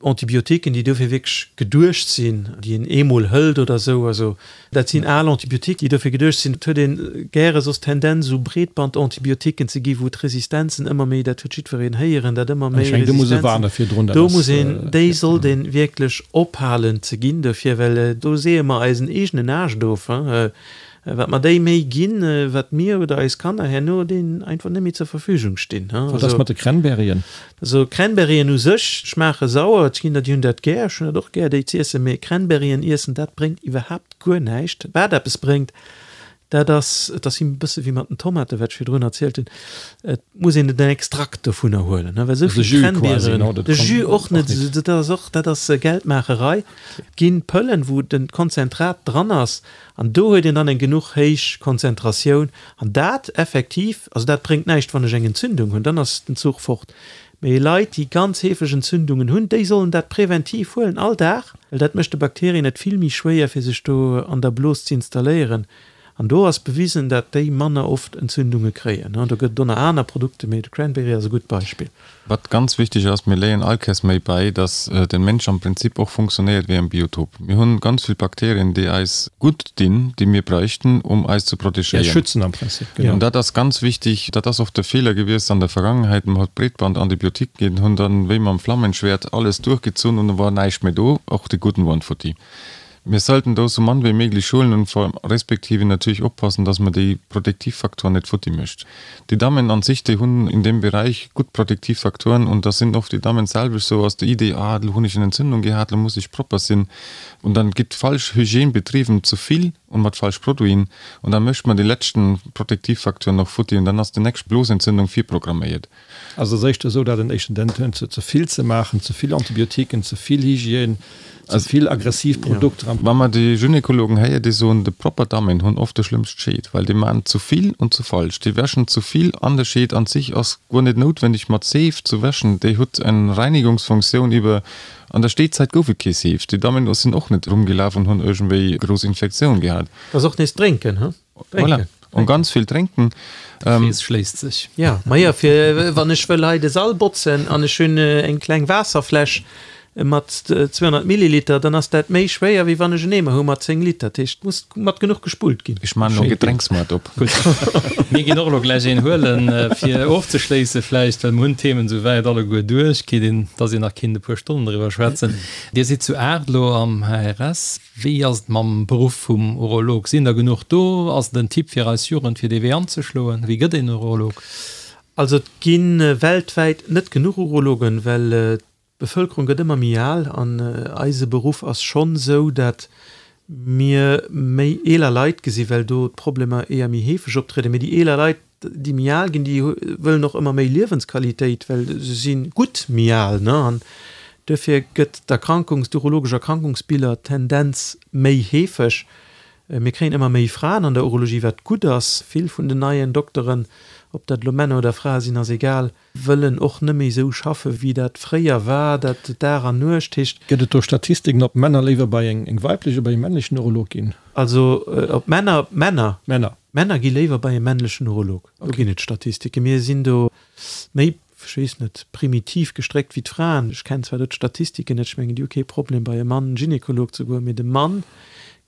Antibiotiquen, déi dofir wierklech geduecht sinn, déi een eemol hëlt oder esou, also dat sinn al Antibiotiquen, déi dofir geduecht sinn. Et huet ee gäre soss d'Tendenz, esou Breetbandantibiotiquen ze gi wou d'Resistenzen ëmmer méi, dat huet jiddwereen héieren, dat ëmmer méi Resistenzen, do muss een, déi sollt ee wierklech ophalen ze ginn dofir, well do seeë mer eisen eegenen Aascht of. Wat mer déi méi ginn, wat mir oder eis Kanner herno deenen einfach net méi zur Verfügung stinn. Wat ass mat de Cranberryen? Also Cranberryen u sech schmaache sauer, et ginn der déi hunn dat gär, ech hunn dat och gär déi z'iessen, mee Cranberryen iessen, dat bréngt iwwerhaapt guer näischt. Wat eppes bréngt, dat ass, et ass e bësse wéi mat den Tomaten, wat ech virdrun erzielt hunn, et muss een den Extrakt dovunner huelen, well esou vill Cranberryen, de Jus och net, dat ass och, dat ass Geldmaacherei. Et ginn Pëllen, wou den Konzentrat dran ass, An do huet een dann eng genuch héich Konzentratioun. An dat effektiv, also dat bréngt näischt, wann ech eng Entzündung hunn, dann ass den Zuch fort. Mee Leit, déi ganz heefeg Entzündungen hunn, déi sollen dat präventiv huelen, all Dag, well dat mécht de Bakterien et vill méi schwéier, fir sech do an der Blos ze installéieren. An do ass bewisen, dat déi manner oft Entzündunge kréien. Do gëtt et och nach aner Produkte, mee de Cranberry ass e gutt Beispill. Wat ganz wichteg ass, mir léien all Kéiers méi bäi, dass den Mensch am Prinzip och funktionéiert wéi en Biotop. Mir hunn ganz vill Bakterien, déi eis gutt dinn, déi mir bräichten, um eis ze Déi eis protegéieren. schützen am Prinzip, genau. An dat ass ganz wichtig. Dat ass oft de Feeler gewiesst an der Vergangenheit, Man huet Breetband-Antibiotiquen ginn, hunn dann wéi mam Flammenschwert alles duerchgezunn und da war näischt méi do, och déi guten waren futti. Mir sollten do sou mann wéi méiglech huelen und vor respektive natierlech oppassen, dass mer déi Protektivfaktoren net futti mécht. Déi Dammen an sich, déi hunn in deem Bereich gutt Protektivfaktoren und da sinn oft déi Dammen selwesch sou aus der Idee, ah, lo hunn ech eng Entzündung gehat, lo muss ech propper sinn und dann gitt falsch Hygiène betrieben, zu vill und mat falsch Produiten und da mécht mer déi letzten Protektivfaktoren noch futti und dann ass déi nächst Blosentzündung virprogramméiert. Also ass éischter esou, dat en éischten Tendenz huet, ze vill ze maachen, ze vill Antibiotiquen, ze vill Hygiène. Ze vill aggressiv Produkter am. Wa mer déi Gynekologen héier, déi soen, de propper Dammen hunn oft de schlëmmst Scheed, well déi maachen zu vill und zu falsch. Déi wäschen zu vill an de Scheed an sich ass guer net noutwenneg mat Seef zu wäschen, déi hutt eng Reinigungsfunktioun iwwer. An der Steezäit gouf et kee Seef, déi Dammen sinn och net rumgelaf an hunn iergendwéi grouss Infektioun gehat. Ass och nees drénken, he? Voilà, und ganz vill drénken. De Krees schléisst sech. Jo, majo, fir wann ech wëll hei de Sall botzen an ech hunn eng kleng Waasserfläsch mat 200 Milliliter, dann ass dat méi schwéier, wéi wann ech en Eemer hu mat 10 Liter. Dat heescht, et muss mat genuch gespullt ginn. Ech maan elo e Gedrénksmaart op. Gutt, mir ginn och elo gläich een huelen, fir ofzeschléisse vläicht, well mir hunn d'Themen esouwäit alleguer duerch, kritt een, dass een nach kinnt e puer Stonnen driwwer schwätzen. Dir sidd zu 8 elo am HRS. Wéi ass et mam Beruff vum Urolog? Sinn der genuch do? Ass et en Tipp fir eis Jugend, fir dee Wee anzeschloen? Wéi gëtt een Urolog? Also et gi weltwäit net genuch Urologen, well d'Bevëlkerung gëtt ëmmer méi al an eise Beruff ass schonn esou, dat mir méi eeler Leit gesi well do d'Problemer éier méi heefeg optrieden. Mee déi eeler Leit, déi méi al ginn, déi wëllen och ëmmer méi Liewensqualitéit, well se si gutt méi al, ne? An duerfir gëtt d'Erkrankungs-, d'urologesch Erkrankungsbiller Tendenz méi heefeg. Mir kréien ëmmer méi Fraen an der Urologie, wat gutt ass. Vill vun den neien Dokteren, ob dat elo Männer oder Frae sinn, ass egal, wëllen och net méi esou schaffe wéi dat fréier war, dat Dag an Nuecht heescht. Gëtt et do Statistiken, ob Männer léiwer bei eng weiblech oder bei e männlechen Urolog ginn? Also ob Männer, Männer. Männer. Männer gi léiwer bei e männlechen Urolog. Do ginn et Statistiken. Mir sinn do méi, ech weess net, primitiv gestréckt wéi d'Fraen. Ech kennen zwar do d'Statistiken net, ech mengen, déi hu kee Problem bei e Mann Gynekolog ze goen, mee de Mann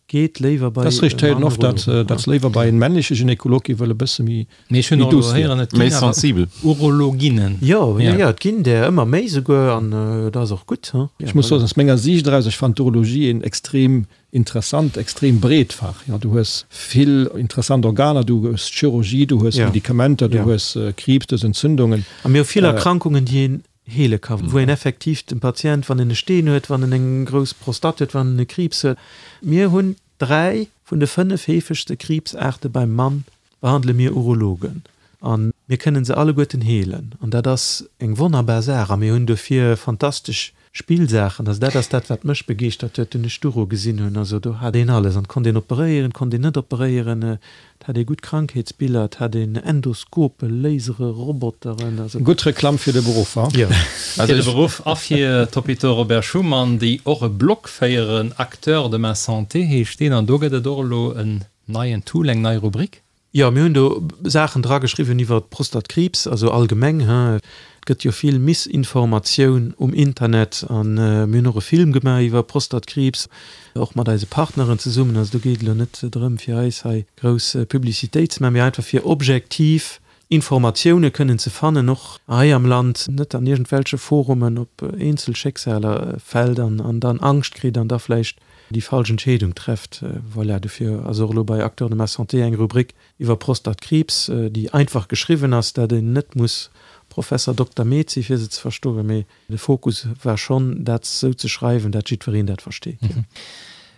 geet léiwer bei e Mann Urolog. Dat ass richteg, datt se léiwer bei en männleche Gynekolog gi wëll e bësse méi Mee ech hunn och elo héieren, et ginn awer Urologinnen. Jo, jo, jo, et ginn där ëmmer méi souguer an dat ass och gutt. Ech muss soen, aus menger Siicht eraus, ech fannen d'Urologie een extrem Interessant, extrem breet Fach. Jo, du hues vill interessant Organer, du hues d'Chirurgie, du hues Medikamenter, du hues Kriibs, du hues Entzündungen. A mir hu vill Erkrankungen, déi een heele ka, wou een effektiv dem Patient, wann en e Steen huet, wann en eng grouss Prostate huet, wann en e Kriibs huet, mir hunn 3 vun de 5 heefegste Kriibsaarte beim Mann behandele mir Urologen a mir kënnen se alleguerten heelen an dat ass eng wonnerbar Saach a mir hunn dofir fantastesch Spillsaachen. Also dat ass dat, wat mech begeeschtert huet, dunn ech d'Uro gesinn hunn. Also do hat een alles an et konnt een operéieren, et konnt een net operéieren, et hat ee gutt Krankheetsbiller, et hat een Endoskopen, Lasere, Roboteren, also. Gutt Reklamm fir de Beruff, ha? Jo. Fir de Beruff a fir d'Hôpitaux Robert Schuman, déi och e Blog féieren, Acteurs de ma santé heescht deen, an do gëtt et och elo en Neien Tool, eng nei Rubrik? Jo, mir hunn do Saachen drageschriwwen iwwer Prostatkriibs, also allgemeng, hein. Et gëtt jo vill Missinformatioun um Internet an mir hunn och e Film gemaach iwwer Prostatkriibs, och mat eise Partneren zesummen. Also do geet et elo net drëm, fir eis hei grouss Publicitéit ze maachen, mee einfach fir objektiv Informatioune kënnen ze fannen, och hei am Land, net an iergendwelche Forumen op eenzel Schécksaler fält an dann Angscht kritt an da vläicht déi falsch Entscheedung trefft. Voilà, dofir ass och elo bei Acteurs de ma santé eng Rubrik iwwer Prostatkriibs, déi einfach geschriwwen ass, dat een net muss Professer Dokter Med si fir se ze verstoen, mee De Fokus war schonn, dat sou ze schreiwen, dat jiddwereen dat versteet.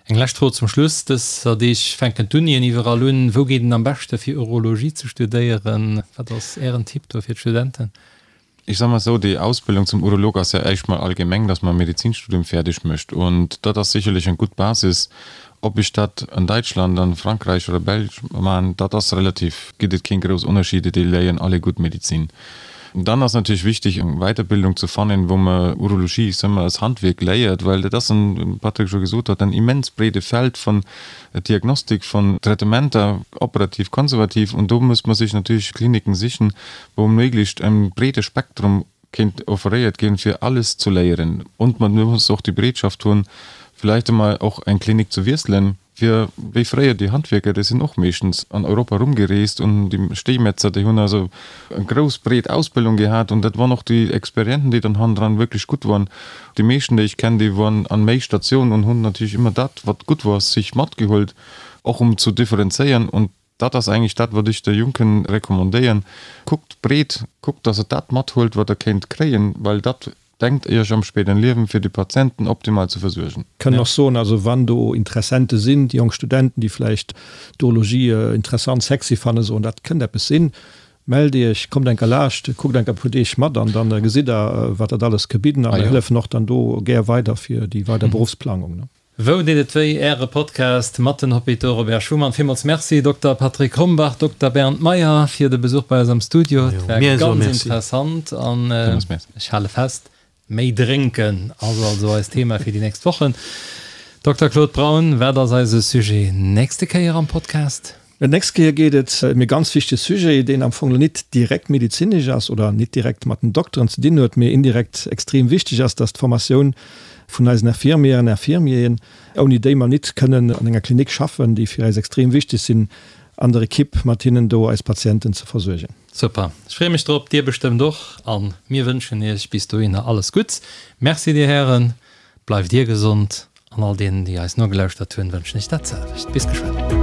Eng lescht Fro zum Schluss, Dëser Deeg fänken d'Unien iwwerall un. Wou geet een am beschte fir Urologie ze studéieren? Wat ass Ären Tipp do fir d'Studenten? Ech soe mol esou, déi Ausbildung zum Urolog ass ja éischt mol allgemeng, dass man e Medizinstudium fäerdeg mécht und dat ass sicherlech eng gutt Basis. Ob ech dat an Däitschland, an Frankräich oder Belsch maan, dat ass relativ, gitt et keen grouss Ënnerscheede, déi léieren alle gutt Medizin. Dann ass natierlech wichteg eng Weiterbildung ze fannen, wou mer Urologie, ech soe mol, als Handwierk léiert, well dat ass en, wéi Patrick scho gesot huet, en immens breede Feld vun Diagnostik, vun Traitementer, operativ, konservativ, und do muss mer sech natierlech Kliniken sichen, wou méiglechst en breede Spektrum kéint offeréiert ginn, fir alles zu léieren. Und man muss och déi Bereetschaft hunn, vielleicht emol och eng Klinik zu wiesselen, fir wéi fréier déi Handwierker, déi sinn och meeschtens an Europa rumgereest und déi Steemetzer, déi hunn also eng grouss breet Ausbildung gehat und dat waren och déi Experienten, déi dann hannendran wierklech gutt waren. Déi meeschten, déi ech kennen, déi waren an méi Statiounen und hunn natierlech ëmmer dat, wat gutt war, sich matgeholt, och um zu differenzéieren. Und Dat ass eigentlech dat, wat ech de Junken recommandéieren, Kuckt breet, kuckt, dass Der dat mathuelt, wat Der kéint kréien, well dat denkt Iech am spéideren Liewen, fir déi Patienten optimal ze versuergen. Kënnen och soen, also wann do Interessente sinn, déi jonk Studenten, déi vläicht d'Urologie interessant, sexy fannen, soen, dat kënnt eppes sinn. Mellt Iech, kommt enker laascht, kuckt enker e puer Deeg mat an dann gesitt der, wat dat alles ke bidden. A mir hëllefen och dann do gär weider fir déi weider Beruffsplangung. Wou deet et wéi? Äre Podcast mat den Hôpitaux Robert Schuman. Villmools Merci Dokter Patrick Rombach, Dokter Bernd Meyer fir de Besuch bei eis am Studio. Et war ganz interessant an ech hale fest, Méi drénken ass also eist Thema fir déi nächst Wochen. Dokter Claude Braun, wat ass eise Sujet nächste Kéier am Podcast? D'nächst Kéier geet et ëm e ganz wichtege Sujet, deen am Fong lo nit direkt medezinesch ass oder nit direkt mat den Dokteren ze dinn huet, mee indirekt extrem wichteg ass, dass d'Formatioun vun eisen Infirmièren, Infirmieren, ouni déi mer nit kënnen an enger Klinik schaffen, déi fir eis extrem wichteg sinn, an der Equipe mat hinnen do eis Patienten ze versuergen. Super, ech freeë mech drop, dir bestëmmt och, an mir wënschen iech bis dohinner alles Gutts. Merci dir Hären, bleift dir gesond an all deenen déi eis nogelauschtert hunn wënschen ech dat selwecht. Bis geschwënn.